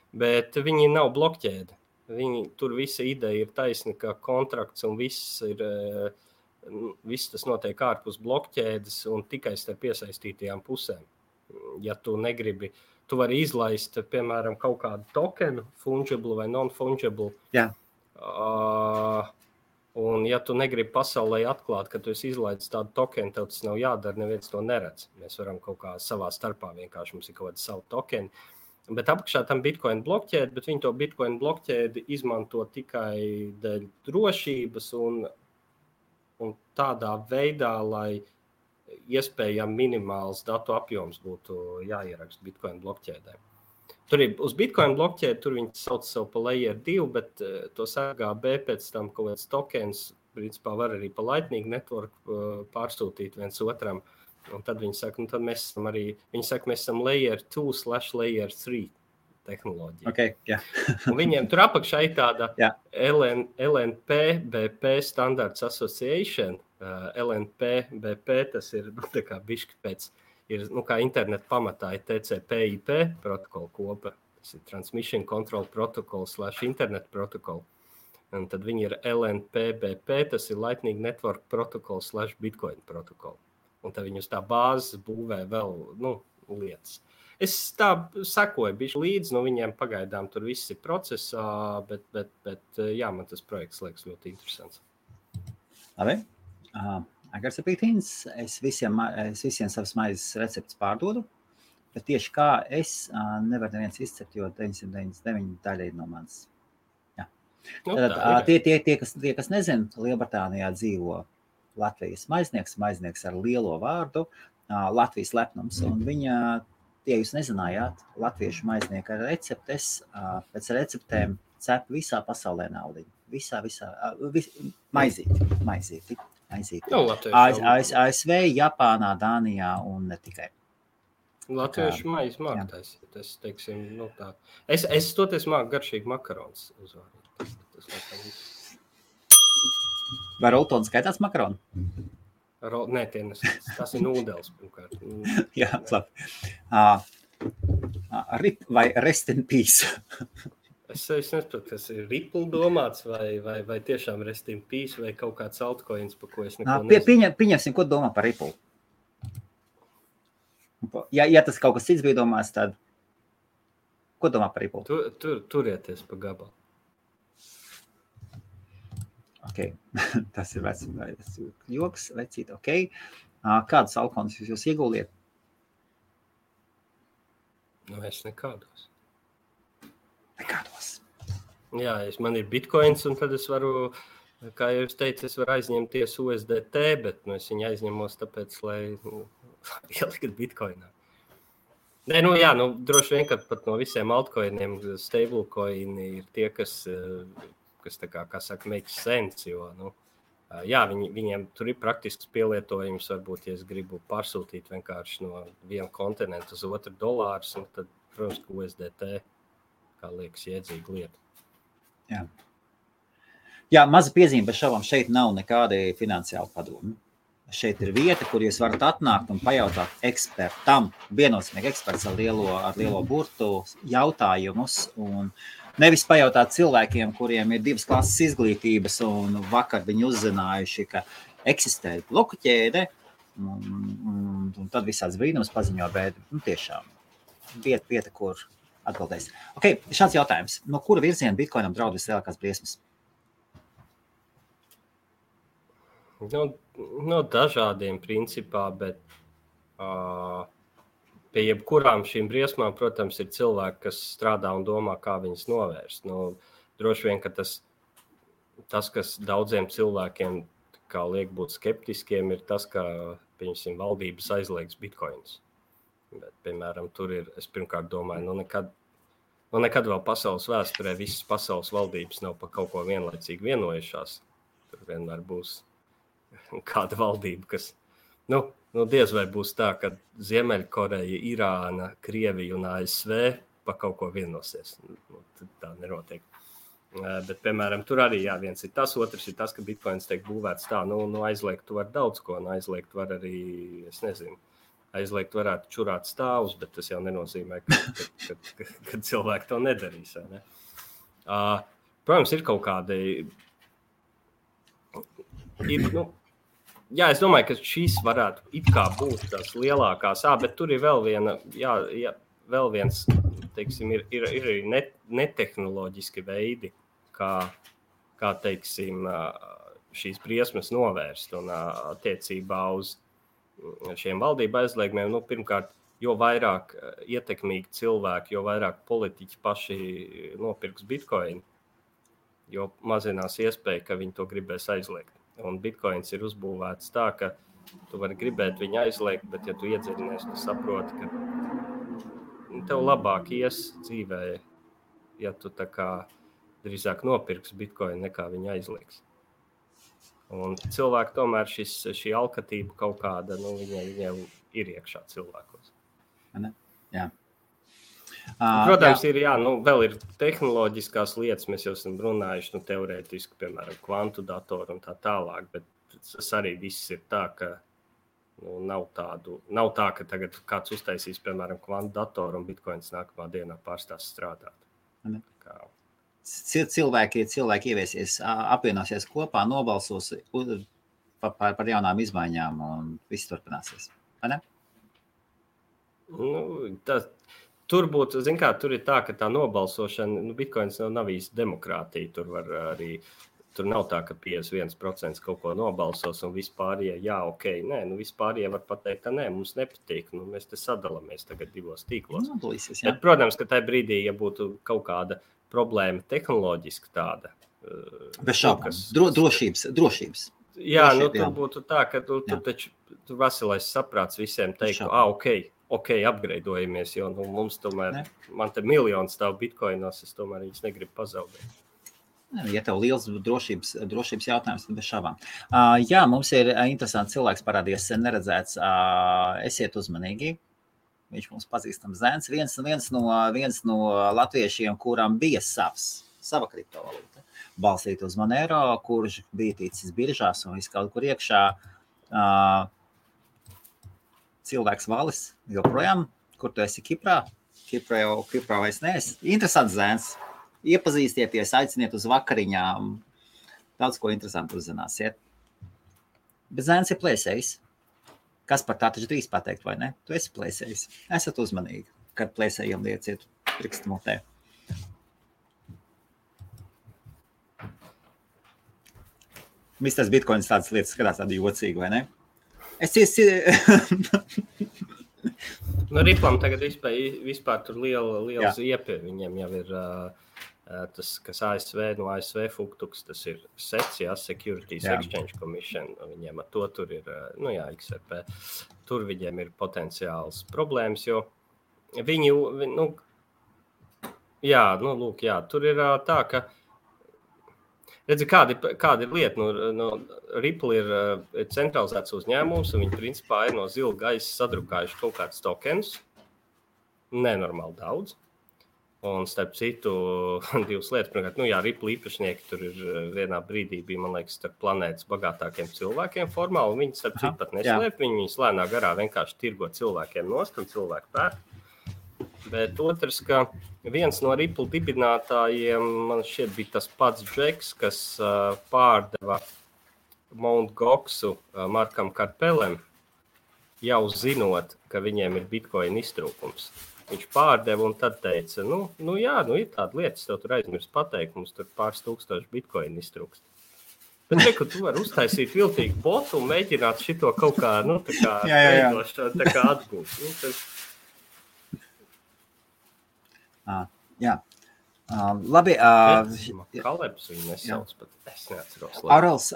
Bet viņi nav blokķēdi. Tur visa ideja ir taisna, ka kontrakts un viss tas notiek ārpus blokķēdes un tikai starp iesaistītajām pusēm. Ja tu negribi, tu vari izlaist, piemēram, kaut kādu tokenu, fungible vai non-fungible. Jā. Un, ja tu negribi pasaulē atklāt, ka tu esi izlaidis tādu tokenu, tev tas nav jādara, neviens to neredz. Mēs varam kaut kā savā starpā vienkārši mums ir kaut kāda savu tokeni. Bet apakšā tam Bitcoin blokķēdi, bet viņi to Bitcoin blokķēdi izmanto tikai dēļ drošības un tādā veidā, lai iespējami minimāls datu apjoms būtu jāieraksta Bitcoin blokķēdē. Tur ir uz Bitcoin blokķēdi, tur viņi sauc sev pa layer 2, bet to SRGB pēc tam kaut kāds tokens, principā var arī pa Lightning network pārsūtīt viens otram. Un tad viņi saka, tad mēs esam arī, mēs esam layer 2/layer 3 tehnoloģija. Okay, yeah. Un viņiem tur apakšā ir tāda LNP BP Standards Association. LNP tas ir tā kā bišķi pēc, ir kā internet pamatā ir TCP/IP protokola kopa. Tas ir Transmission Control Protocol / Internet Protocol. Un tad viņi ir LNP BP, tas ir Lightning Network Protocol / Bitcoin Protocol. Un tad viņi uz tā bāzes būvē vēl lietas. Es tā sakoju bišķi līdzi, viņiem pagaidām tur viss ir procesā, bet jā, man tas projekts liekas ļoti interesants. Labi. Agars apītīns, es visiem savas maizes receptes pārdodu, bet tieši kā es nevaru neviens izcept, jo 999 daļa ir no manis. Jā. Tad tie, kas nezin, Lielbritānijā dzīvo Latvijas maiznieks ar lielo vārdu, Latvijas lepnums, un viņa, tie jūs nezinājāt, latviešu maiznieka receptes, pēc receptēm cep visā pasaulē naudiņu. Visā, maizīti. ASV, Japānā, Dānijā un ne tikai. Latviešu maizi māk taisīt. Es teiksim, tā. Es toties māku garšīgi makarons uzvārīt. Tas laikam viss. Vai roltons skaitās makaronu? Nē, tas ir nūdels pirmkārt. Jā, labi. Rip vai rest in peace? Es nesaprotu, kas ir Ripple domāts vai tiešām rest in peace vai kaut kāds altcoins, pa ko es neko nezinu. Pieņemsim, ko domā par Ripple. Ja tas kaut kas cits bija domās, tad ko domā par Ripple? Turieties pa gabalu. Okay. Tas ir joks, vecīt, ok. Kādus alkonus jūs ieguldiet? Es nekādos. Nekādos. Jā, man ir bitcoins, un tad es varu, kā jau es teicu, es varu aizņemties USDT, bet es viņu aizņemos tāpēc, lai ielikt bitcoinā. Nē, droši vien, ka pat no visiem altcoiniem stablecoini ir tie, kas tā kā saka, makes sense, jo, jā, viņiem tur ir praktisks pielietojums, varbūt, ja es gribu pārsūtīt vienkārši no viena kontinenta uz otru dolārus, un tad, protams, ka USDT, kā liekas, iedzīga lieta. Jā, maza piezīme bez šaubām, šeit nav nekādi finansiāli padomi. Šeit ir vieta, kur jūs varat atnākt un pajautāt ekspertam, viennozīmīgi eksperts ar lielo burtu jautājumus, un nevis pajautāt cilvēkiem, kuriem ir 2 klases izglītības, un vakar viņi uzzinājuši, ka eksistē bloku ķēde, un tad visāds brīnums paziņo, bet tiešām vieta, kur atbildēs. Ok, šāds jautājums. No kura virziena Bitcoinam draud vislielākās briesmas? No dažādiem principā, bet pie jebkurām šīm briesmām, protams, ir cilvēki, kas strādā un domā, kā viņas novērst. Droši vien, ka tas, kas daudziem cilvēkiem kā liek būt skeptiskiem, ir tas, ka, pieņemsim, valdības aizliegs bitcoins. Bet, piemēram, tur ir, es pirmkārt domāju, nekad vēl pasaules vēsturē visas pasaules valdības nav par kaut ko vienlaicīgi vienojušās. Tur vienmēr būs kāda valdība, kas, diez vai būs tā, ka Ziemeļkoreja, Irāna, Krievija un ASV par kaut ko vienosies. Tā nenotiek. Bet, piemēram, tur arī viens ir tas, otrs ir tas, ka bitcoins tiek būvēts tā, aizliegt tu var daudz ko, aizliegt var arī, es nezinu, aizliegt varētu čurāt stāvus, bet tas jau nenozīmē, ka cilvēki to nedarīs. Ne? Protams, ir kaut kādi... es domāju, ka šīs varētu it kā būt tās lielākās, bet tur ir vēl vēl viens, teiksim, ir arī netehnoloģiski veidi, kā teiksim, šīs briesmas novērst un attiecībā uz šiem valdību aizliegumiem. Nu, pirmkārt, jo vairāk ietekmīgi cilvēki, jo vairāk politiķi paši nopirks bitcoin, jo mazinās iespēja, ka viņi to gribēs aizliegt. Un bitcoins ir uzbūvēts tā, ka tu vari gribēt viņu aizliegt, bet ja tu iedziļinies, tu saproti, ka tev labāk ies dzīvē, ja tu tā kā drīzāk nopirks bitcoin nekā viņu aizliegs. Un cilvēki tomēr šī alkatība kaut kāda, viņiem ir iekšā cilvēkos. Jā. Protams, vēl ir tehnoloģiskās lietas, mēs jau esam runājuši, teorētiski, piemēram, kvantu datoru un tā tālāk, bet tas arī viss ir tā, ka nav tā, ka tagad kāds uztaisīs, piemēram, kvantu datoru un bitcoins nākamā dienā pārstās strādāt. Cilvēki ieviesies, apvienosies kopā, nobalsos par jaunām izmaiņām un viss turpināsies. Vai ne? Tur būtu, tur ir tā, ka tā nobalsošana, bitcoins nav īsti demokrātija, tur nav tā, ka 51% kaut ko nobalsos un vispārējie, nē, vispārējie var pateikt, ka nē, mums nepatīk, mēs te sadalamies tagad divos tīklos. Bet, protams, ka tajā brīdī, ja būtu kaut kāda problēma tehnoloģiski tāda. Bez šaubām. Drošības. Jā, tur būtu tā, ka tur veselais saprāts visiem teikt, upgradeojamies, jo mums tomēr, man te miljoni stāv bitcoinos, es tomēr viņus negribu pazaudēt. Ja tev liels drošības jautājums, tad bez šaubām. Jā, mums ir interesants cilvēks parādījies, neredzēts, esiet uzmanīgi. Viņš mums pazīstams Zēns, viens no latviešiem, kuram bija sava kriptovalūta, balstīt uz Monero, kurš bija ticis biržās un viss kaut kur iekšā. Cilvēks Valis joprojām, kur tu esi Kiprā? Kiprā vairs neesi. Interesants Zēns. Iepazīstieties, aiciniet uz vakariņām. Daudz ko interesantu uzzināsiet. Bet Zēns ir plēsējs. Kas par tā taču drīz pateikt, vai ne? Tu esi plēsējs. Esat uzmanīgi, kad plēsējiem lieciet pirkstu mutē. Misters Bitcoins tādas lietas skatās tādi jocīgi, vai ne? Riplam tagad vispār tur liela ziepie. Viņiem jau ir tas, kas no ASV Fuktuks, tas ir SEC, Securities Exchange Commission. Viņiem ar to tur ir, XRP. Tur viņiem ir potenciāls problēmas, jo viņi, tur ir tā, ka redzi, kāda ir lieta, Ripple ir centralizēts uzņēmums, un viņi principā ir no zila gaisa sadrukājuši kaut kādus tokenus, nenormāli daudz. Un starp citu, divas lietas, pirmkārt, Ripple īpašnieki tur ir vienā brīdī bija, man liekas, starp planētas bagātākiem cilvēkiem formāli, un viņi starp citu pat neslēp, viņi lēnā garā vienkārši tirgo cilvēkiem nost, un cilvēku pēr. Bet otrs, ka viens no Ripple dibinātājiem, man šķiet, bija tas pats Džeks, kas pārdeva Mt. Goxu Markam Karpelem, jau zinot, ka viņiem ir bitcoin iztrūkums. Viņš pārdeva un tad teica, ir tāda lietas, tev tur aizmirst pateikt, mums tur pāris tūkstoši bitcoin iztrūkst. Bet tu vari uztaisīt viltīgu botu un mēģināt šito kaut kā, tā kā atgūt. Labi. Kalebs viņu nesauc, bet es neatceros. Aurels,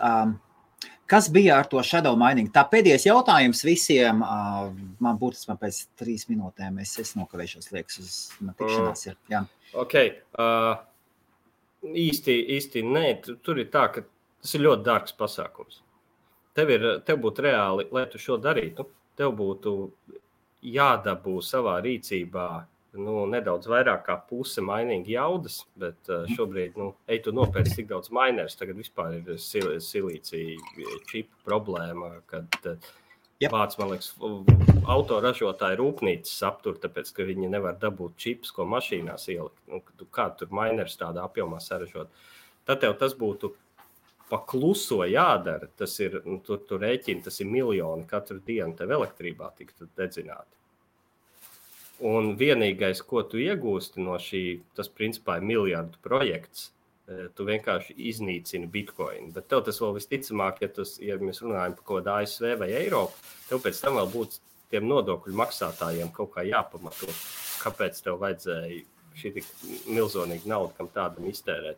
kas bija ar to shadow mining? Tā pēdējais jautājums visiem, man būtiski pēc 3 minūtēm, es nokavēšos, liekas, uz tikšanās. Jā. Ok, īsti nē, tur ir tā, ka tas ir ļoti dārgs pasākums. Tev būtu reāli, lai tu šo darītu, tev būtu jādabū savā rīcībā nedaudz vairāk kā puse mining jaudas, bet šobrīd, ej tu nopērc tik daudz minerus, tagad vispār ir silīcija čipu problēma, kad vāc, man liekas, autoražotāji rūpnīcas aptur, tāpēc, ka viņi nevar dabūt čipus, ko mašīnās ielikt. Kā tur minerus tādā apjomā saražot? Tad tev tas būtu pa kluso jādara, tas ir, tu rēķini, tas ir miljoni katru dienu tev elektrībā tiktu dedzināti. Un vienīgais, ko tu iegūsti no tas principā ir miljardu projekts, tu vienkārši iznīcini Bitcoin. Bet tev tas vēl visticamāk, ja mēs runājam par kaut kādu ASV vai Eiropu, tev pēc tam vēl būtu tiem nodokļu maksātājiem kaut kā jāpamato, kāpēc tev vajadzēja šī tik milzonīga nauda, kam tādam iztērēt.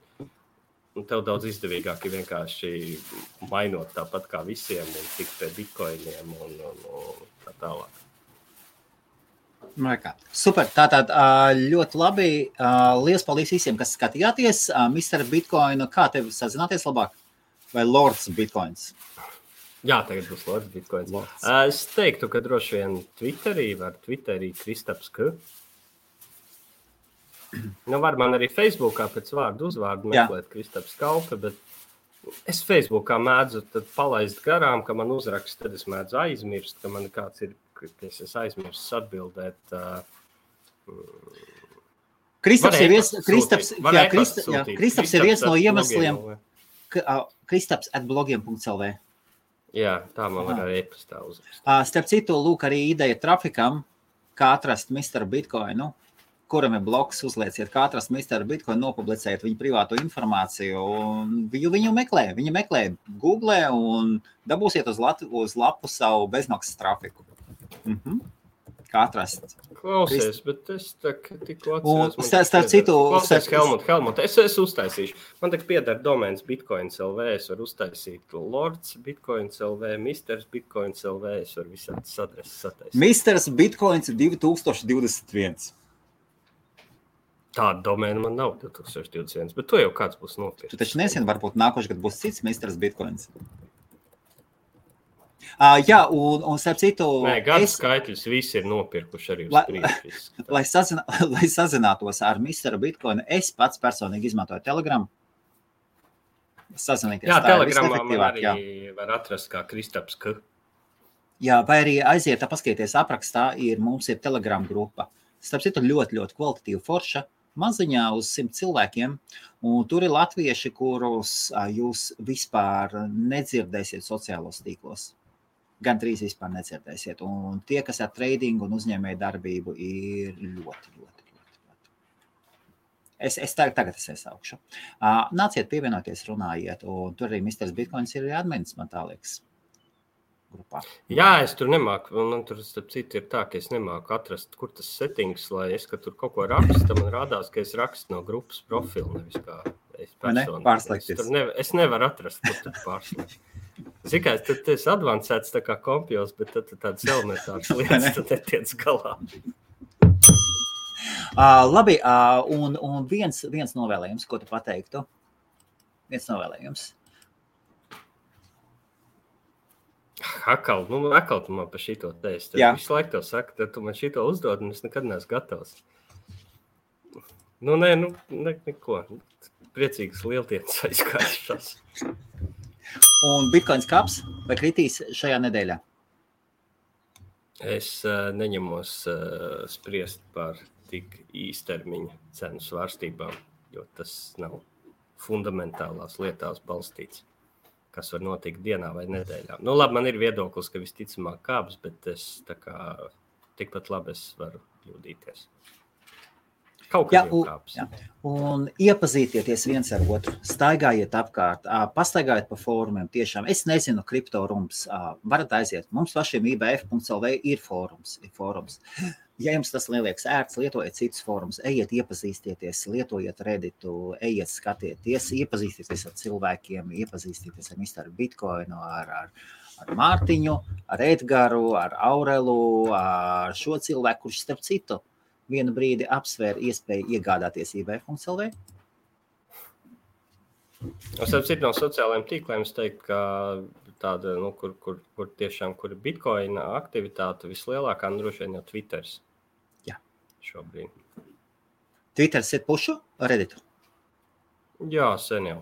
Un tev daudz izdevīgāk ir vienkārši mainot tāpat kā visiem un tikt pie Bitcoiniem un tā tālāk. Super, tātad ļoti labi. Liels paldies visiem, kas skatījāties. Mr. Bitcoin, kā tev sazināties labāk? Vai Lords Bitcoins? Jā, tagad būs Lords Bitcoins. Es teiktu, ka droši vien Twitterī Kristaps K. Nu, var man arī Facebookā pēc vārdu uzvārdu meklēt Kristaps Kaupe, bet es Facebookā mēdzu tad palaist garām, ka man uzrakst, tad es mēdzu aizmirst, ka man kāds ir, es aizmirst atbildēt. Kristaps ir viens no iemesliem. Kristaps@blogiem.lv. Jā, tā man var arī e-pastā uzrakst. Starp citu, lūk arī ideja trafikam, kā atrast Mr. Bitcoinu, kuram ir blogs, uzlieciet, kā atrast Mr. Bitcoin, nopublicējiet viņu privāto informāciju, un viņu meklē Google un dabūsiet uz lapu savu bezmaksas trafiku. Kā atrast? Klausies, bet es tikko atceros. Un starp citu... Klausies, Helmut, es uztaisīšu. Man tagad pieder domēns Bitcoins.lv, es varu uztaisīt Lords Bitcoins.lv, Mr. Bitcoins.lv, es varu visādas adreses sataisīt. Mr. Bitcoins 2021. Tāda domēna man nav 2021, bet to jau kāds būs nopirkt. Tu taču nesien, varbūt nākošais gadu būs cits Mr. Bitcoins. Jā, un starp citu... Nē, gadu skaitļus visi ir nopirkuši arī uz priekšu. Lai sazinātos ar Mr. Bitcoin, es pats personīgi izmantoju Telegram. Jā, Telegramā man arī var atrast kā Kristaps K. Jā, vai arī aiziet, paskatieties aprakstā, mums ir Telegram grupa. Starp citu ļoti, ļoti kvalitatīva forša, maziņā uz 100 cilvēkiem, un tur ir latvieši, kurus jūs vispār nedzirdēsiet sociālos tīklos. Gan drīz vispār nedzirdēsiet. Un tie, kas ar tradingu un uzņēmēju darbību, ir ļoti. Es tagad iesaukšu. Nāciet pievienoties, runājiet, un tur arī Mr. Bitcoins ir admins, man tā liekas. Grupā. Jā, es tur nemāku, man tur starp citu ir tā, ka es nemāku atrast, kur tas settings, lai es, ka tur kaut ko rakstu, man rādās, ka es rakstu no grupas profilu, nevis kā es personu. Es nevaru atrast, kur tad pārslēgt. Zikai, tad es advancēts tā kā kompjos, bet tad tāds elementārs lietas, tad netiec galā. Labi, un viens novēlējums, ko tu pateiktu? Viens novēlējums. Akal tu man par šito teisti. Tad visu laiku tev saka, tad tu man šito uzdod, un es nekad neesmu gatavs. Neko. Priecīgas lieltienas aizkāršās. Un Bitcoins kāps vai kritīs šajā nedēļā? Es neņemos spriest par tik īstermiņa cenu svārstībām, jo tas nav fundamentālās lietās balstīts, kas var notikt dienā vai nedēļā. Labi, man ir viedoklis, ka visticamāk kāps, bet es tikpat labi es varu kļūdīties. Kaut kas jau kāps. Jā. Un iepazītieties viens ar otru, staigājiet apkārt, pastaigājiet pa fórumiem tiešām. Es nezinu, kriptorums, varat aiziet. Mums pašiem IBF.lv ir fórums. Ja jums tas liekas ērts, lietojiet citus fórumus, ejiet iepazīstieties, lietojiet Redditu, ejiet skatieties, iepazīstieties ar cilvēkiem, iepazīstieties ar Mr. Bitcoinu, ar Mārtiņu, ar Edgaru, ar Aurelu, ar šo cilvēku, kurš starp citu vienu brīdi apsvēra iespēju iegādāties IBF.lv. Starp citu no sociālajiem tīkliem es teiktu, ka tāda, kur tiešām, kur ir Bitcoina aktivitāte vislielākā, droši vien jau Twitters. Jā. Šobrīd. Twitters ir pušu Redditu? Jā, sen jau.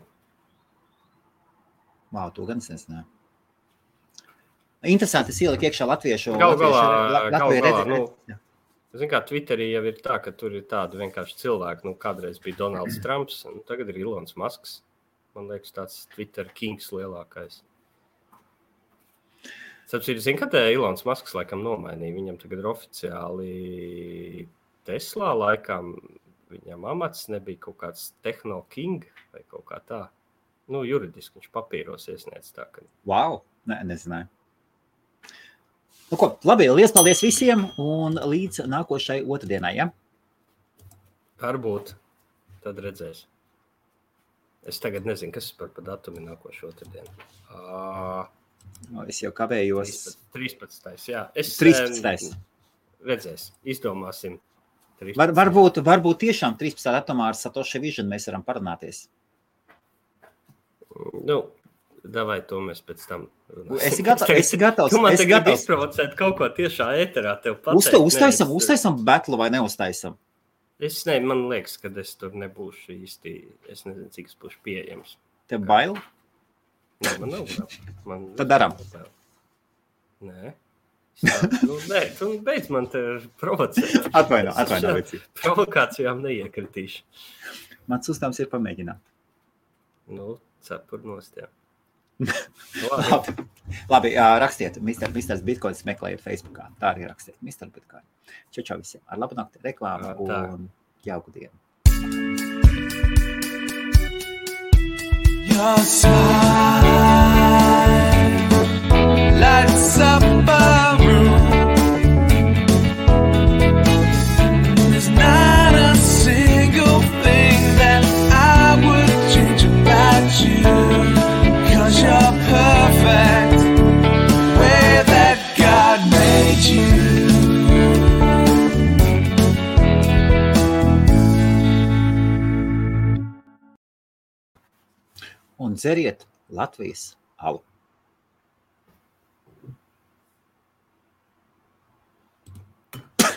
To gan es nezināju. Interesanti, es ieliku iekšā latviešu. Zin kā, Twitterī jau ir tā, ka tur ir tādi vienkārši cilvēki, kādreiz bija Donalds Trumps, tagad ir Ilons Masks. Man liekas, tāds Twitter kings lielākais. Zin, ka Ilons Masks laikam nomainīja, viņam tagad ir oficiāli Teslā laikam viņam amats nebija kaut kāds Techno King vai kaut kā tā. Nu, juridiski viņš papīros iesniedz tā, ka... Wow, nezināju. Nu ko, labi, liels paldies visiem un līdz nākošai otrdienai, ja? Varbūt, tad redzēs. Es tagad nezinu, kas par datumi nākošu otrdienu. Es jau kavējos. 13. Jā. 13. Redzēs, izdomāsim. Varbūt tiešām 13. datumā ar Satoshi Vision mēs varam parunāties. Nu, davai to mēs pēc tam runāsim. Esi gatavs. Tu man tagad izprovocēt kaut ko tiešā ēterā tev pateikt. Uztaisam batlu vai neuztaisam? Man liekas, ka es tur nebūšu īsti, es nezinu, cik es būšu pieejams. Tev bail? Nē, man nav bail. Tad daram. Nē. Nē, tu beidz man te provocēt. Atvaino. Provokācijām neiekritīšu. Mans uzdevums ir pamēģināt. Nu, cepur nost, jā. Labi, rakstiet, Mr. Bitcoins meklējiet Facebookā. Tā arī rakstiet, Mr. Bitcoin. Čau visiem. Ar labu nakti, reklāmu un jauku dienu. Your smile lights up a room. There's not a single thing that I would change about you. 'Cause you're perfect, way that God made you. Un dzeriet Latvijas alu.